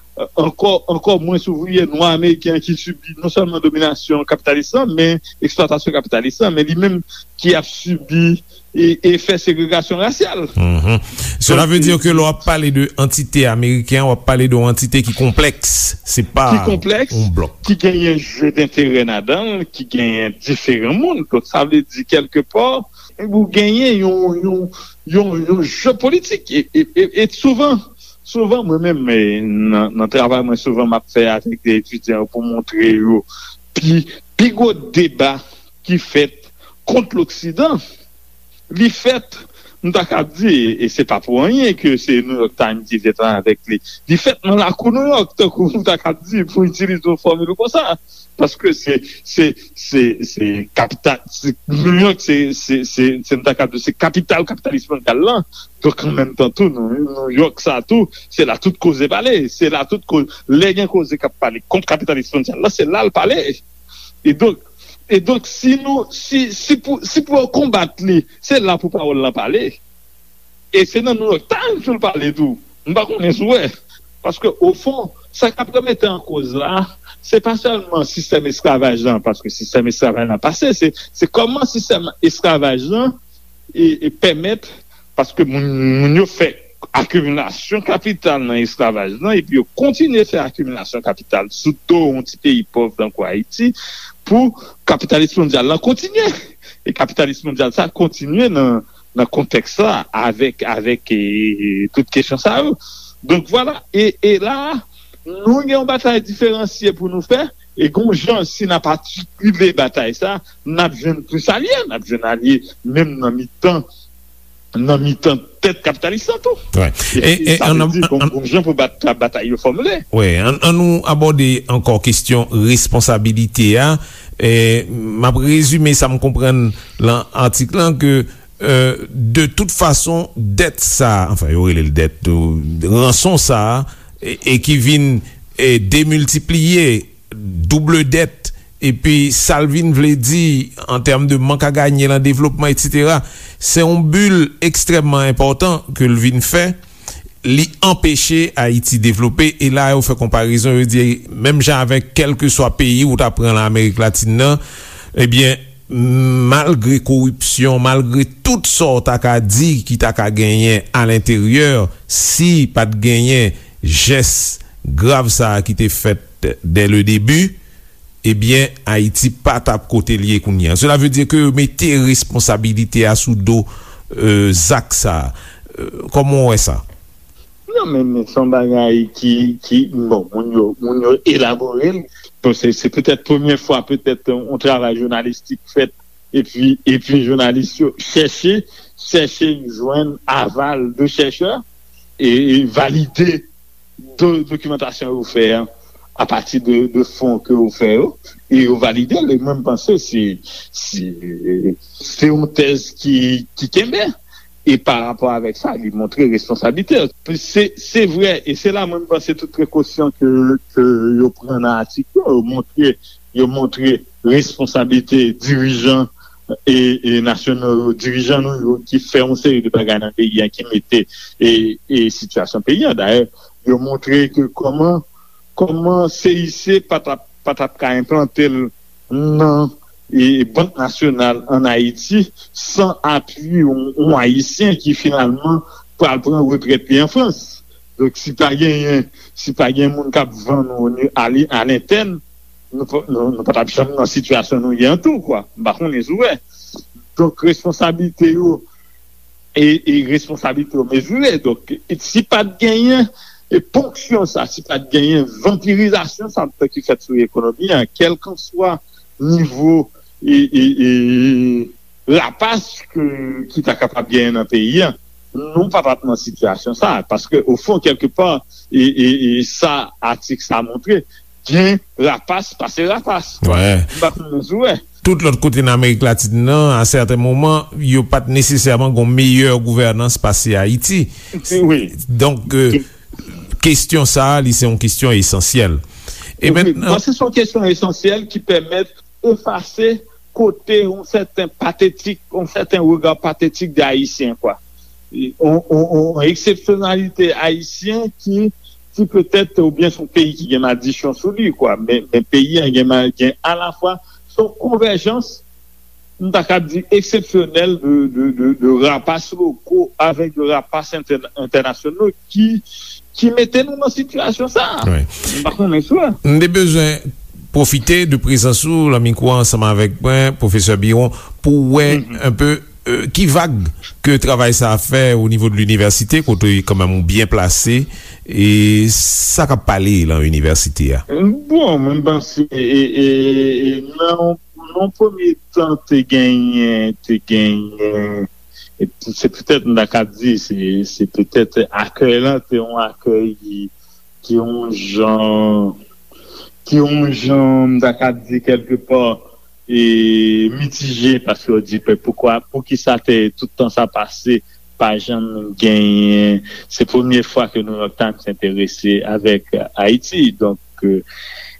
ankò, ankò mwens ouvriye nwa ameriken an ki sibi non sèlman dominasyon kapitalis lan, men eksplwatasyon kapitalis lan, men li menm ki ap sibi e, efè segregasyon rasyal. Mhm. Cela veut dire que lè w ap pale de antite ameriken, w ap pale de yon antite ki konplèks. Se pa yon blòk. Ki konplèks, ki genyen je denterè ladan l, ki genyen diferan moun. Donk, sa vle di, kèlkepò, ou genyen yon, yon, yon, yon je politik. E, e, e, e souvan, souvan, mwen menm, e, nan, nan travay mwen, souvan m ap fè avèk de etidyan pou montre yo pi, pi gwo deba ki fèt kont Loksidan, li fèt, m ta kab di, e se pa pou anyen ke se New York Times ki te travay avèk li. Li fèt nan lakou New York, tankou m ta kab di, pou itilize yon fòmil konsa. Paske se, se, se, se kapital, se, New York, se, se, se, se, m ta kab di, se kapital kapitalis mondyal lan. Donk, an menm tan tou, New, New York sa tou, se la tout koze pale. Se la tout koze, lè gen koze k ap pale kont kapitalis mondyal lan, se la l pale. E donk, e donk, si nou, si, si pou, si pou yo konbat li, se la pou pawòl lan pale. E se nan New York Times pou l pale tou. M pa konnen si w wè. Paske, ofon, sa k ap remete an koz la, se pa sèlman sistèm esklavaj lan, paske sistèm esklavaj lan pase, se, se kòman sistèm esklavaj lan e, e pèmèt, paske moun, moun yo fè akimilasyon kapital nan esklavaj lan, epi yo kontinye fè akimilasyon kapital sou do yon ti peyi pòv tankou Ayiti, pou kapitalis mondyal lan kontinye. E kapitalis mondyal sa kontinye nan, nan kontèks la, avèk, avèk, e, e, tout kesyon sa yo. Donk, vwala. E, e la, nou gen yon batay diferansye pou nou fè. E gon jan, si n ap atikile batay sa, n ap jwenn plis alye, n ap jwenn alye menm nan mitan, nan mitan tèt kapitalis lan tou. Wè. E, e, e sa vle di gon, gon jan pou bat, batay yo fòmile. Wè, an, an nou abòde ankò kesyon responsabilite a. E, m ap rezime sa m konprann lan atik lan ke, e, de tout fason, dèt sa, anfen, yo rele l dèt, ranson sa, e, e ki vin, e, demiltipliye, double dèt, epi sa l vin vle di an tèm de mank a ganye lan devlopman, etsetera, se yon bil ekstrèmman enpòtan ke l vin fè. Li anpeche Ayiti devlope, e la yo fè konparezon, yo di, menm jan avèk kèlkeswa peyi ou ta pran lan Amerik Latin nan, ebyen, malgre koripsyon, malgre tout sa w ta ka di ki ta ka genyen alenteryè, si pa t genyen jès grav sa a ki te fèt dès le début, ebyen, Ayiti pa t ap kote l ye kounye a. Cela veut dire que yo mete responsabilite a sou do, euh, zak sa a. Euh, kòman w wè sa? Non, men, men se yon bagay ki, ki, bon, moun yo, moun yo elabore l. Bon, se, se petèt premye fwa, petèt, yon travay jounalistik fèt, epi, epi jounalis yo chèche, chèche jwenn aval de chèchè, e, e valide do-, dokimantasyon yo fè a, apati de, de fon ke yo fè yo, e yo valide l, e mwen m panse se, se, se yon tèz ki, ki kenbe. E pa rapò avèk sa, li montre responsablite l. Se, se vre, e se la mwen m panse tout prekosyon ke, ke yo pran nan atik yo, yo montre, yo montre responsablite dirijan e, e nasyonal yo, dirijan nou yo ki fè yon seri de bagay nan peyi a, ki mete e, e sitiyasyon peyi a. Dayè, yo montre ke kòman, kòman C I C pa t ap, pa t ap ka enplante l nan, e, Bank Nasyonal ann Ayiti san apui yon, yon Ayisyen ki finalman pral pran retrèt li an Frans. Donk, si pa genyen, si pa gen moun k ap vann ou ni-, a li-, a lentèn, nou pa, nou, nou pa t ap janm nan sitiyasyon nou ye an tou, kwa. M pa konnen si w wè. Donk, responsablite yo, e, e responsablite yo mezire. Donk, e si pa t genyen, e ponksyon sa, si pa t genyen vanpirizasyon sa ki fèt sou ekonomi an, kèlkanswa nivo, e, e, e, rapas ke, ki ta kapab genyen nan peyi a, nou pa t ap nan sitiyasyon sa a. Paske, ofon, kèlkepa, e, e, e sa atik sa montre, gen rapas pase rapas. Wè. M pa konnen si w wè. Tout lòt kote nan Amerik Latin nan, a sèten moman, yo pa t nesesèman gon meyè gouvènans pase Ayiti. Wi. Donk, e, kesyon sa a, li se yon kesyon esansyèl. E wi, mentnan, bon, se yon kesyon esansyèl ki pèmèt efase kote yon sèten patetik, yon sèten rega patetik de Ayisyen, kwa. Yon, yon, yon eksepsyonalite ayisyen ki, ki petèt, oubyen se yon peyi ki gen madichon sou li, kwa. Men, men peyi a gen ma-, gen alafwa, se yon konvèjans, m ta kab di, eksepsyonèl de, de, de, de rapas loko avèk de rapas entè-, entènasyonal ki, ki mete nou nan sitiyasyon sa a. Wi. M pa konnen si w wè. M te bezwen pwofite de prezans ou lan mikwo a ansanm avèk mwen, pwofesè Biron, pou wè, mhm, enpe euh, ki vag ke travay sa a fè o nivo de linivèsite, kote kanmenm ou byen plase, e sa k ap pale lan inivèsite a? Bon, mwen panse, e, e, e, nan, nan premye tan, te genyen, te genyen, e se petèt, m ta ka di, se, se petèt akèy lan, te yon akèy ki, ki yon jan, ki yon jan, m ta ka di, kèlkepa, e mitije, paske yo di, "Pe-, poukwa, poukisa te, tout tan sa pase, pa janm genyen?" Se premye fwa ke New York Times enterese avèk Ayiti. Donk, e,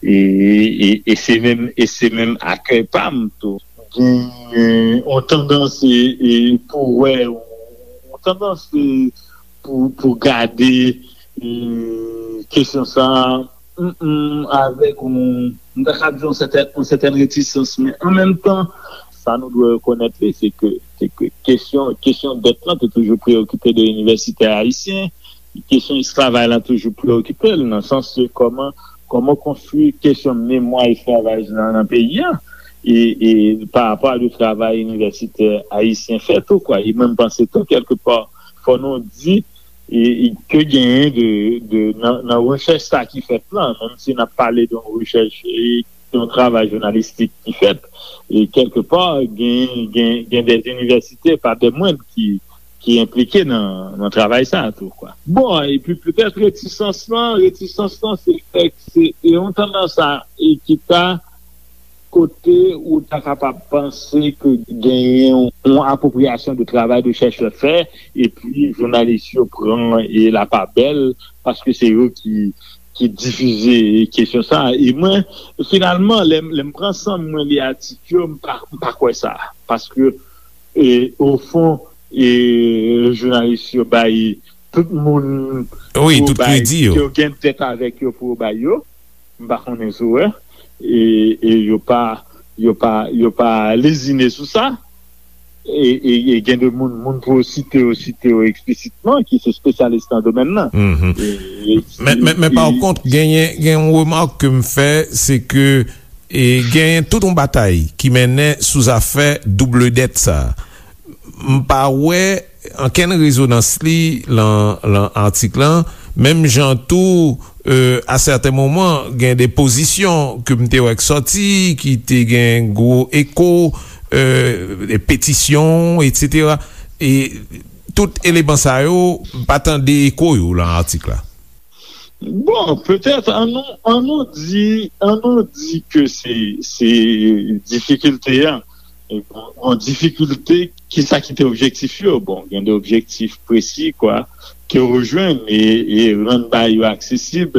e, e se menm, e se menm akèy pa m tou. Genyen yon tandans, e, e, pou wè, yon tandans, e, pou, pou gade, e, kesyon sa a, mm, mm, avèk yon, m ta ka di yon sètèn, yon sètèn retisans, men an menm tan, sa nou dwe rekonèt li, se ke, se ke kesyon, kesyon dèt lan te toujou preyokipe de inivèsitè ayisyen, kesyon esklavaj lan toujou preyokipe l, nan sans ke kòman, kòman konstwi kesyon memwa esklavaj lan nan peyi a, e, e pa rapò a de travay inivèsitè ayisyen fè tou, kwa. E mwen, m panse tou, kèlkepa, fò nou di, e, e ke genyen de, de, nan, nan rechèch sa ki fèt lan, menm si n ap pale de yon rechèch, e, yon travay jounalistik ki fèt, e kèlkepa, gen, gen, gen de inivèsite, pa de mwen ki, ki enplike nan, nan travay sa a tou, kwa. Bon, epi petèt retisans lan, retisans lan, se fèk, se, e yon tandans a, e ki ta kote ou ta kapab panse ke genyen yon apwopriyasyon de travay de chèchè fè, epi jounalis yo pran e lapabèl, paske se yo ki, ki difize kesyon sa a. E mwen, finalman, lè, lè m pran san m, mwen li atik yo, m pa, m pa kwè sa. Paske, e, ofon, e, jounalis yo bay tout moun, wi, pou yo tout bay, kredi yo, ke yo gen dèt avèk yo pou yo bay yo. M pa konnen si w wè. E, e yo pa, yo pa, yo pa lezine sou sa. E, e, e gen de moun, moun pou yo site yo, site yo eksplisitman, ki se espesyalis nan domèn nan. Mhm. E, e, men, men, men e, pa kont, genyen, gen yon remak ke m fè, se ke, e, genyen tout yon batay ki mennen sou zafè double dèt sa. M pa wè ankenn rezonans li lan, lan atik lan, menm jan tou, e, a sèten moman, gen de pozisyon ke m te wè k sòti, ki te gen gwo eko, e, de petisyon, etsetera. E tout eleman sa yo, m pa tande eko yo lan atik la. Bon, petèt, an nou, an nou di, an nou di ke se, se difikilte a. E bon, bon, difikilte, kisa ki te objektif yo? Bon, gen de objektif presi, kwa, ke yo jwenn e, e rann bagay yo aksesib.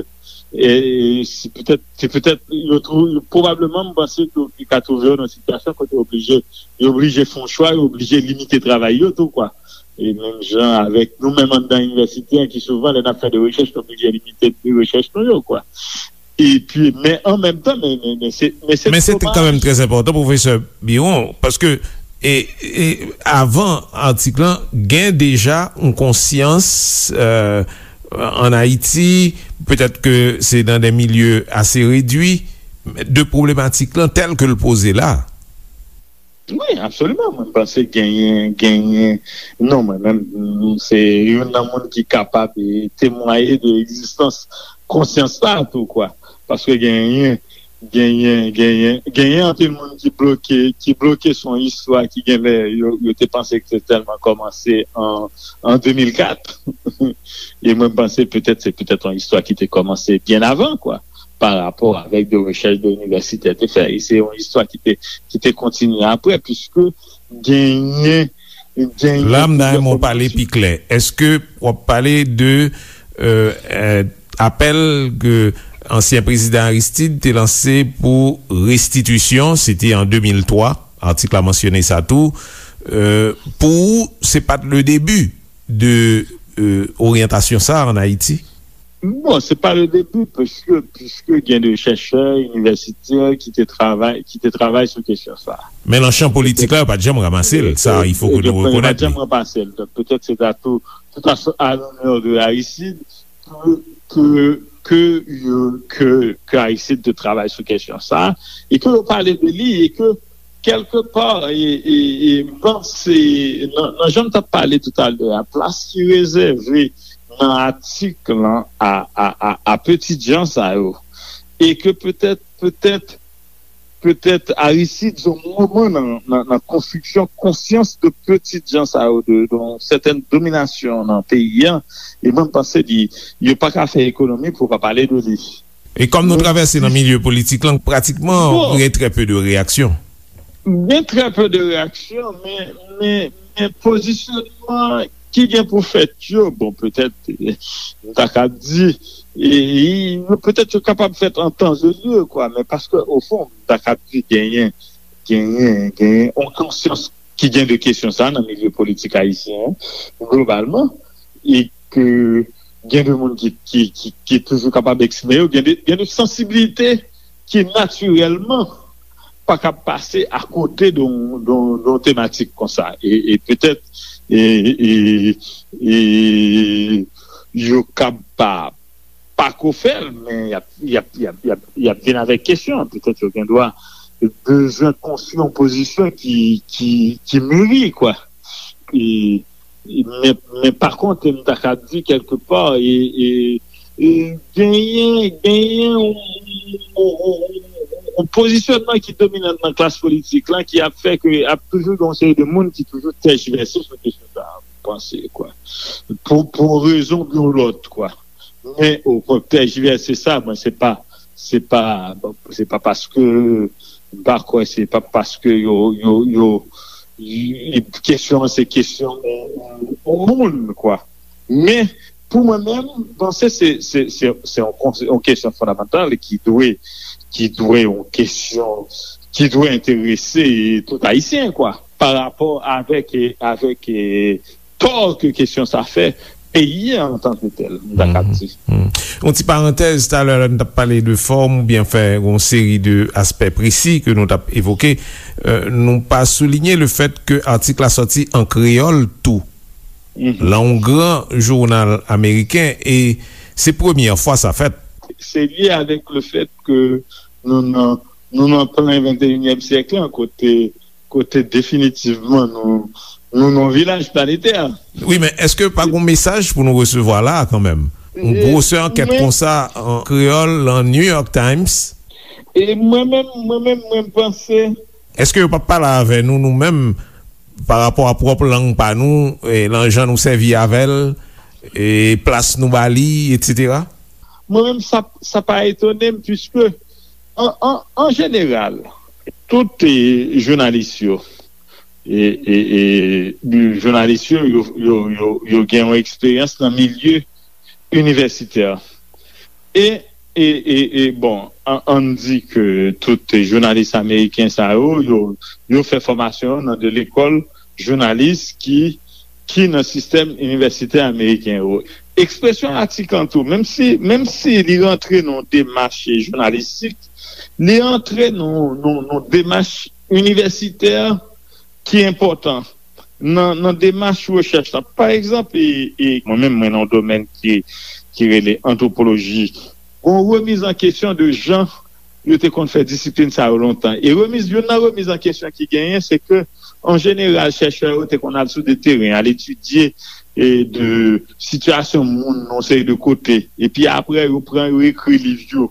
E se petèt, se petèt, yo twou-, pwobableman, m panse ke yo ka twouve yo nan sitiyasyon kote yo oblije, yo oblije fè yon chwa, yo oblije limite travay yo tou, kwa. E menm jan avèk nou menm anndan inivèsite an, ki souvan, lè n ap fè de rechèch, nou oblije limite de rechèch nou yo, kwa. Epi, men an menm tan, men, men, men se, men se domaj. Men se kanmenm trè enpòtan, pwofesè Biron, paske, e, e, avan atik lan, gen deja yon konsyans, e, ann Ayiti, petèt ke se nan de milye ase redwi, de pwoblematèk lan tèl ke l poze la. Wi, absoliman. Mwen panse genyen, genyen, non, mwen menm, m, se youn nan moun ki kapab, e, temwaye de egzistans konsyans sa a tou, kwa. Paske genyen, genyen, genyen, genyen anpil moun ki bloke, ki bloke sou yon istwa ki genlè yo, yo te panse ke te tèlman kòmanse an, an de mil kat. E mwen panse petèt, se petèt yon istwa ki te kòmanse byen avan, kwa, pa rapò avèk de rechèch de inivèsitè te fè. E se yon istwa ki te, ki te kontinye apre, piske genyen, genyen plizyè fòm de sou- La, m ta renmen w pale pi klè. Èske w ap pale de, e, e, apèl ke ansyen prezidan Aristide te lanse pou restitisyon, se te an de mil twa, atik la mansyone sa tou, e, pou ou, se pa t le debi de, e, oryantasyon sa a ann Ayiti? Bon, se pa le debi, paske, piske gen de chèchè inivèsitè ki te travay, ki te travay sou kesyon sa a. Men nan chan politik la, yo pa t janm ranmase l. Sa, il faut que nou rekonèt li. Yo pa t janm ranmase l. Donk, petèt se ta tou, tout à, à l'honneur de Aristide, ke, ke, ke, yo, ke, ke Aristide te travay sou kesyon sa a, e ke yo pale de li, e ke Kèlkepa, e, e, e, m panse, nan, nan jan m t ap pale toutalè a, plas ki rezève nan atik lan a, a, a, a petitjan sa yo, e ke petèt, petèt, petèt Aristide, yon moman nan, nan, nan konstriksyon konsyans de petitjan sa yo, de, de yon sètèn dominasyon nan peyi a, e mwen, m panse li, yo pa ka fè ekonomi pou yo pa pale de li. E kòm nou travèse nan milye politik lan, pratikman, gen trè pe de reyaksyon. Gen trè pe de reyaksyon, men, men, men pozisyonman ki gen pou fèt yo, bon, petèt, m ta ka di, e, e, petèt yo kapab fèt an tan e lye, kwa, men paske, o fon, m ta ka di genyen, genyen, genyen yon konsyans ki gen de kesyon sa nan milye politik ayisyen an, globalman, e ke gen de moun ki, ki, ki, ki toujou kapab eksprime yo, gen de, gen de sansibilite ki natirèlman pa kab pase akote de yon, de yon, de yon tematik konsa. E, e petèt, e, e, e, yo kab pa, pa ko fè l, men y ap, y ap, y ap, y ap, y ap vin avèk kesyon. Petèt yo gen dwa bezwen konstwi yon pozisyon ki, ki, ki miri, kwa. E, e, men, men pa kont, m ta ka di kèlkepa, e, e, e genyen, genyen yon, yon, yon, yon pozisyonman ki dominan nan klas politik lan ki ap fè ke ap toujou gen yon seri de moun ki toujou tèjivèse sou kesyon sa a, m panse, kwa. Pou, pou yon rezon oubyen yon lòt, kwa. Men, o kontrè, tèjivèse sa, mwen, se pa, se pa, se pa paske, m pa kwè, se pa paske yo, yo, yo, y-, kesyon an, se kesyon yon, yon moun, kwa. Men, pou mwen menm, m panse se, se, se, se yon, se yon kesyon fondamantal ki dwe, ki dwe yon kesyon, ki dwe enterese tout Ayisyen, kwa, pa rapò avèk, avèk, tò ke kesyon sa fè peyi a antanketel, m ta ka di. Mhm. Yon ti parantèz, talè lè n t ap pale de fòm oubyen fè yon seri de aspè presi ke nou t ap evoke, euh, nou pa soulinye le fèt ke atik la sòti an kreyòl tou. Mhm. Lan yon gran jounal ameriken, e se premyè fwa sa fèt. Se lye avèk le fèt ke nou nan, nou nan plen venteyinyèm syèk lan, kote, kote definitivman nou, nou nan yon vilaj planetè. Wi, men èske pa gon mesaj pou nou resevwa la a kanmenm? Yon gwosè ankèt konsa an kreyòl, lan New York Times? E mwen menm, mwen menm, mwen panse. Èske yo p ap pale avè nou, nou menm, pa rapò a pwòp lang pa nou, e, lan jan nou sèvi avè l, e plas nou ba li, etsetera? Mwen menm, sa, sa pa etone m, piske, an, an, an jeneral, tout, e, jounalis yo, e, e, e, jounalis yo, yo, yo, yo, yo gen yon eksperyans nan milye inivèsitè. E, e, e, e, bon, an, ann di ke tout jounalis ameriken sa yo, yo, yo fè fòmasyon nan de lekòl jounalis ki, ki nan sistèm inivèsitè ameriken yo. Ekspresyon atik lan tou, menm si, menm si li rantre nan yon demach jounalistik, li rantre nan, nan, nan demach inivèsitè ki enpòtan nan, nan demach rechèch la. Pa egzanp, e, e, mwen menm, mwen nan yon domèn ki, ki rele antwopoloji. Gon remiz an kesyon de jan yo te konn fè disiplin sa yo lontan. E remiz, youn nan remiz an kesyon ki genyen, se ke, an jeneral, chèchè yo te konn al sou de teren, al etidye, e, de sitiyasyon moun nan yon seri de kote. Epi apre, yo pran, yo ekri liv yo.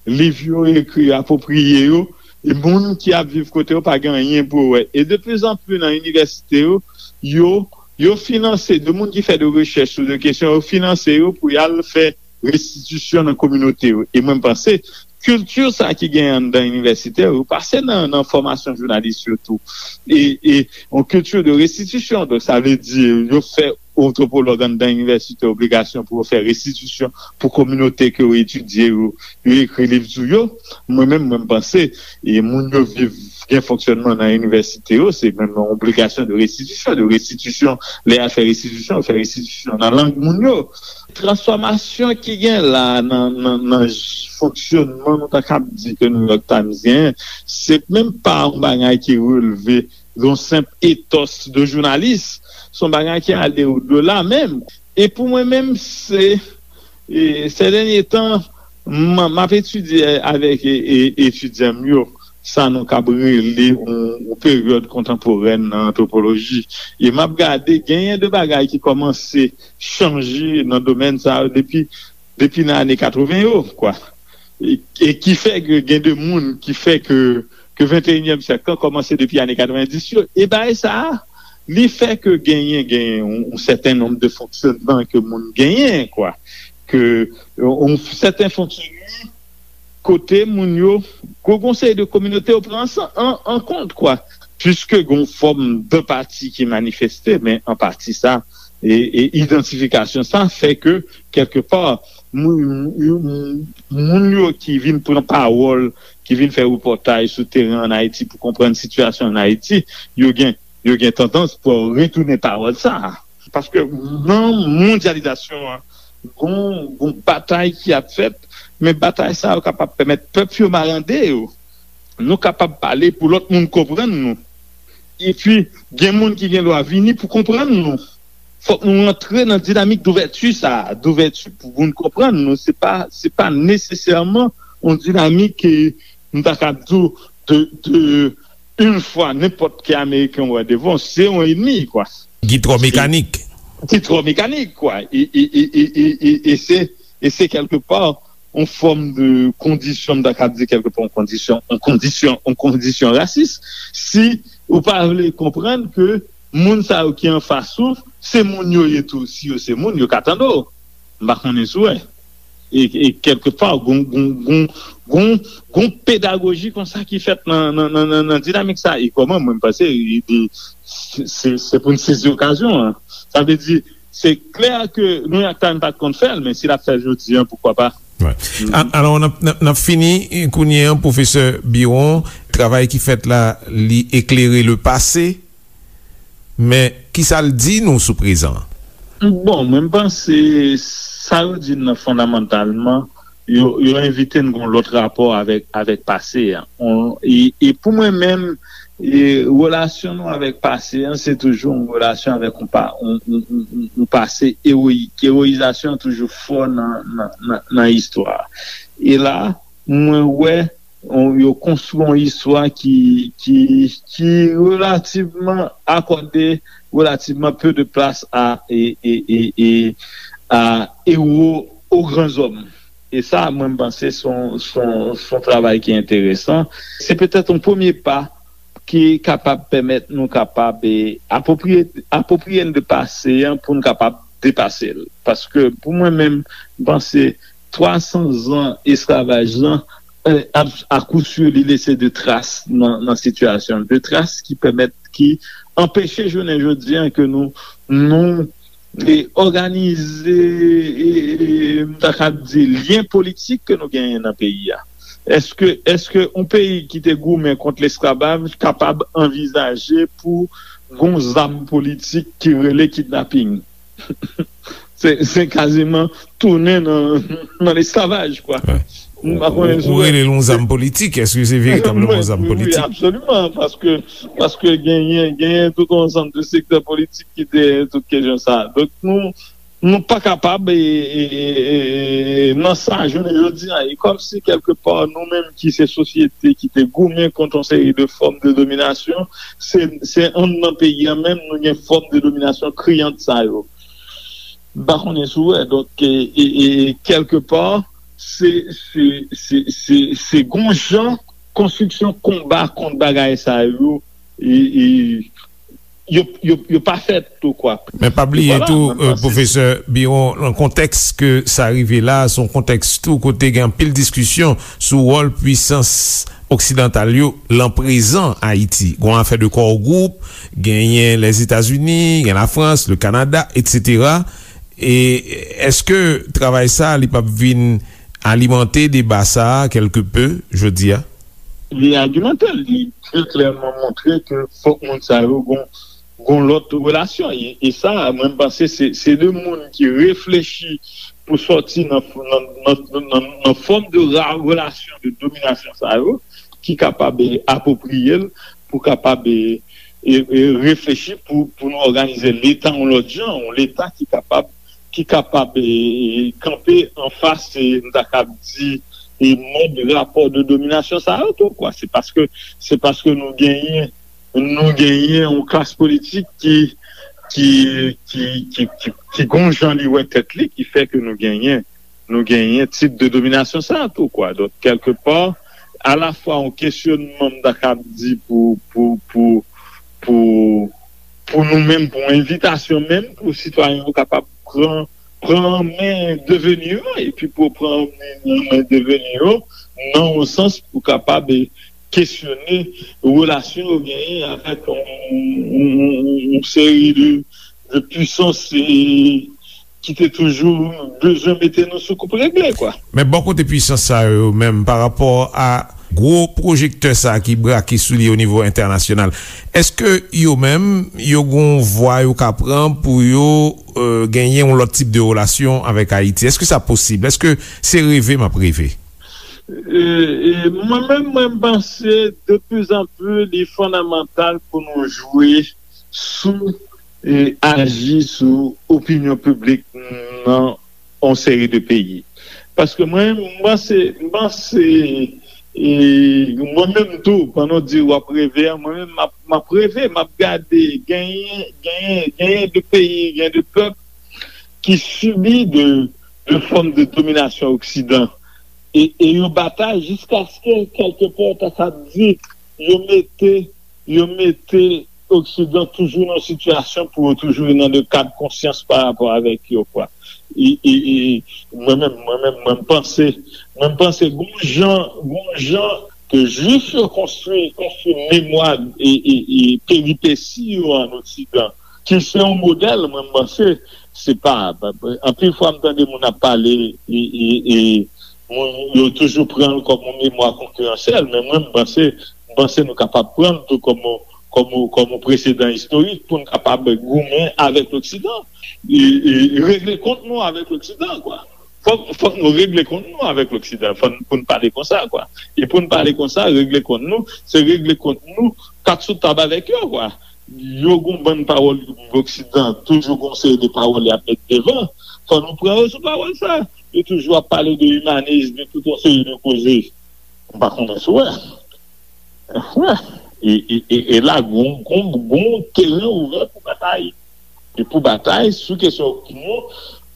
Liv yo ekri apwopriye yo, e moun ki ap viv kote yo pa gen anyen pou yo wè. E de pli zan pli nan inivèsite yo, yo, yo finanse, de moun ki fè de rechèch sou de kesyon, yo finanse yo pou y al fè restitisyon nan kominote yo. E mwen, m panse, kilti sa ki genyen anndan inivèsitè yo pase nan, nan fòmasyon jounalis yo tou. E, e yon kilti de restitisyon. Donk, sa vle di, yo fè antwopològ anndan inivèsite obligasyon pou yo fè restitisyon pou kominote ke yo etidye yo, yo ekri liv sou yo. Mwen menm, mwen, m panse, e moun yo viv, gen fonksyònman nan inivèsite yo, se menm yon obligasyon de restitisyon, de restitisyon, lè y al fè restitisyon, yo fè restitisyon nan lang moun yo. Transfòmasyon ki gen la nan, nan, nan j-, fonksyònman, nou ta kab di ke New York Times genyen, se menm pa yon bagay ki releve yon senp etòs de jounalis, se yon bagay ki ale odela menm. E pou mwen menm, se, e, sè dènye tan, m, m ap etidye avèk, e, e, etidyan m yo, sa nou kab rele yon, yon peryòd kontanporèn nan antwopoloji. E m ap gade, genyen de bagay ki kòmanse chanje nan domèn sa yo depi, depi nan ane katreven yo, kwa. E, e ki fè ke gen de moun ki fè ke, ke venteyinyèm syèk lan kòmanse depi ane katrevendis yo. E bagay sa a, li fè ke genyen, genyen yon, yon sèten nonb de fonksyònman ke moun genyen, kwa. Ke yon, yon sèten fonksyònman kote moun yo, gon, gon seri de kominote yo pran an, an, an kont, kwa. Piske gon fòm de pati ki manifeste, men an pati sa, e, e idantifikasyon sa fè ke, kèlke pa, moun, moun, moun yo ki vin pran pawòl, ki vin fè repòtaj sou teren ann Ayiti pou konprann sitiyasyon ann Ayiti, yo gen, yo gen tandans pou retounen pawòl sa a. Paske nan mondyalizasyon an, gon, gon batay ki ap fèt, men batay sa yo kapab pèmèt pèp yo marande yo. Nou kapab pale pou lòt moun konprann nou. Epi, gen moun ki gen dwa vini pou konprann nou. Fòk nou rantre nan dinamik douvèti sa a, douvèti pou moun konprann nou. Se pa, se pa nesesèman yon dinamik ke m ta ka di w de, de une fois, nenpòt ki Ameriken wè devan, se yon enmi, kwa. Ki twò mekanik. Ki twò mekanik, kwa. E, e, e, e, e, e, e se, e se kèlke pa yon fòm de kondisyon, m ta ka di kèlke pa yon kondisyon, yon kondisyon, yon kondisyon rasis. Si ou pa vle konprann ke moun sa yo ki anfas ou, se moun yo ye tou. Si yo se moun, yo ka tande w. M pa konnen si w wè. E, e kèlke pa, gon, gon, gon, gon, gon pedagoji konsa ki fèt nan, nan, nan, nan, nan dinamik sa. E kòman, mwen, m panse, e, e, se, se, se pou n sezi okazyon an. Sa vle di, se klè ke New York Times pa t konn fè l, men si l ap fè l jodi an, poukwa pa? Wè. A- Alò, n ap, n ap, n ap fini kounye an, pwofesè Biron. Travay ki fèt la, li eklere le pase, men ki sa l di nou sou prezan an? Bon, mwen, m panse sa yo di n nan fondamantalman, yo, yo envite n gon lòt rapò avèk, avèk pase a. On, e, e pou mwen menm, e, relasyon nou avèk pase an, se toujou yon relasyon avèk yon, pa, yon, yon, yon, yon, yon pase ewoyik. Ewoyizasyon an toujou fò nan, nan, nan, nan istwa. E la, mwen wè, on, yo konstwi yon istwa ki, ki, ki relativman akòde relativman peu de place à, e, e, e, e, à héros aux grands hommes. E sa, mwen, m panse se yon, se yon, se yon travay ki enteresan. Se petèt yon premye pa ki kapab pèmèt nou kapab, e, apwopriye, apwopriye n de pase an pou n kapab depase l. Paske pou mwen menm, m panse twa san zan esklavaj lan, e, a, akousur, li lese de tras nan, nan sitiyasyon, de tras ki pèmèt, ki anpeche jounen jodi an ke nou, nou, e, òganize, e, e, m ta ka di, lyen politik ke nou genyen nan peyi a. Èske, èske yon peyi ki te goumen kont lesklavaj kapab anvizaje pou gon zam politik ki rele kidnaping? Se, se kaziman tounen nan, nan lesklavaj, kwa. Wè. M pa konnen si w wè. Ou rele l yon zam politik, èske se veritableman yon zam politik? Wi, absoliman, paske, paske genyen, genyen tout yon ansanm de sektè politik ki te tout kesyon sa. Donk, nou, nou pa kapab, e, e, e, e, nan sa, jounen jodi a, e kòmsi kèlke pa, nou menm ki se sosyete ki te goumen kont yon seri de fòm de dominasyon, se, se anndan peyi a menm, nou gen fòm de dominasyon kriyant sa yo. M pa konnen si w wè. Donk, e, e, e, kèlke pa, se, se, se, se, se gon jan konstriksyon konba kont bagay sa yo, e, e, yo, yo, yo pa fèt tou, kwa. Men pa bliye tou, e, pwofesè Biron, nan kontèks ke sa rive la, se yon kontèks tou kote gen anpil diskisyon sou wòl pwisans oksidantal yo lan prezan Ayiti. Gon afè de core group, genyen Lèzetazini, gen Lafrans, le Kanada, etsetera. E èske travay sa, li p ap vin alimante deba sa a kèlke pe jodi a? Li alimante l, li trè klèman montre ke fòk moun sa yo gon, gon lòt relasyon. E, e sa, mwen, m panse se, se de moun ki reflechi pou sòti nan, nan, nan, nan, nan, nan fòm de ra-, relasyon de dominasyon sa yo, ki kapab, e, apwopriye l, pou kapab, e, e, e, reflechi pou, pou nou òganize Leta yon lòt jan, yon Leta ki kapab, ki kapab, e, e, kanpe anfas, e, m ta kab di, e mòd rapò de dominasyon sa yo tou, kwa. Se paske, se paske nou genyen, nou genyen yon klas politik ki, ki, ki, ki, ki, ki gon jan li wè tèt li, ki fè ke nou genyen, nou genyen tip de dominasyon sa tou, kwa. Donk, kèlkepa, alafwa yon kesyonman, m ta kab di, pou, pou, pou, pou, pou nou menm, pou envitasyon menm, pou sitwayen yo kapab pran, pran men deveni yo, epi pou pran men deveni yo, nan yon sans pou kapab, e, kesyone relasyon yo genyen avèk yon, yon, yon, yon seri de, de pwisans, e, ki te toujou bezwen mete nou sou koup regle, kwa. Men bò kote pwisans sa yo menm, pa rapò a gwo pwojektè sa ki brake sou li o nivo entènasyonal, èske yo menm, yo gon vwa yo ka pran pou yo, euh, genyen yon lòt tip de relasyon avèk Ayiti? Èske sa posib? Èske se reve m ap reve? E, e, mwen menm, mwen panse de plus en plus, li fondamantal pou nou jwe sou, e, aji sou opinyon piblik nan yon seri de peyi. Paske mwen, m panse, m panse, e, mwen menm tou, pandan w di w ap reve a, mwen menm, m ap, m ap reve, m ap gade, genyen, genyen, genyen de peyi, genyen de pèp ki sibi de, de fòm de dominasyon Oksidan. E, e yo batay jiskaske, kèlkepè, ta sa di, yo mete, yo mete Oksidan toujou nan sitiyasyon pou yo toujou nan de kad konsyans pa rapò avèk yo, kwa. E, e, e, mwen menm, mwen menm, mwen m panse, mwen m panse, gon jan, gon jan ke Jwif yo konstwi, konstwi memwa e, e, e peripesi yo an Oksidan, ki se yon modèl, mwen m panse, se pa, anpil fwa m tande moun ap pale, e, e, e, moun, yo toujou pran l kòm yon memwa konkiransyèl, men mwen, m panse, m panse nou kapab pran l tou kòm yon, kòm yon, kòm yon presedan istorik pou n kapab goumen avèk Loksidan, e, e regle kont nou avèk Loksidan, kwa. Fòk, fòk nou regle kont nou avèk Loksidan, fòk, pou n pale konsa, kwa. E pou n pale konsa, regle kont nou, se regle kont nou, kat sou tab avèk yo, kwa. Yo gon bann pawòl Loksidan, toujou gon seri de pawòl y ap met devan. Fò nou pran yo sou pawòl sa. Yo toujou ap pale de imanis, de tout yon seri de koze. M pa konnen si w wè. Wè. E, e, e, e la, gon, gon, gon teren ouvè pou batay. E pou batay sou kesyon opinyon,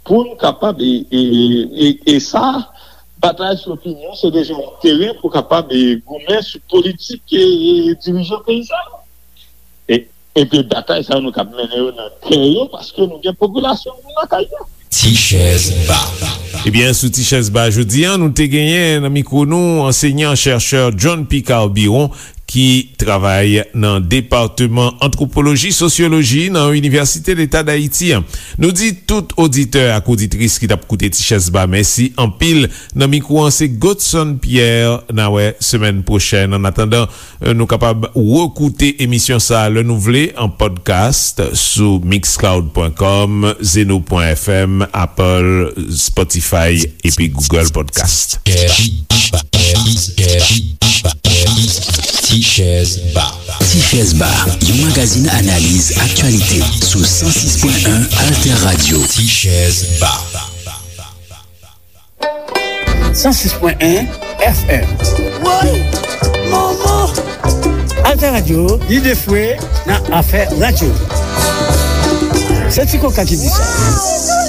pou n kapab, e, e, e, e sa, batay sou opinyon, se deja yon teren pou kapab, e, goumen sou politik, e, e, dirijan peyi sa yo. E, epi batay sa yo, nou kab mennen yo nan kè yo, paske nou gen popilasyon nou lakay yo. Ti chèz ba. Ebyen, sou Ti chèz ba jodi a, nou te genyen nan mikwo nou ansenyan chèchè John Picard Biron, ki travay nan Depatman Antwopoloji Sosyoloji nan Inivèsite Leta Dayiti an. Nou di tout oditè ak oditris ki t ap koute Ti chèz ba mèsi anpil. Nan mikwo an, se Godson Pierre. N a wè semèn pwochèn. Annatandan, euh, nou kapab rekoute emisyon sa a lè nou vle an podcast sou mixcloud pwen kòm, zeno pwen fm, Apple, Spotify epi Google Podcast. Ti chèz ba. Ti chèz ba, yon magazin analiz aktyalite sou san sis pwen en Alter Radio. Ti chèz ba. San sis pwen en F M. Woy! Manman! Alter Radio, lide fwe nan afè radyo. Se Ti Koka ki di sa.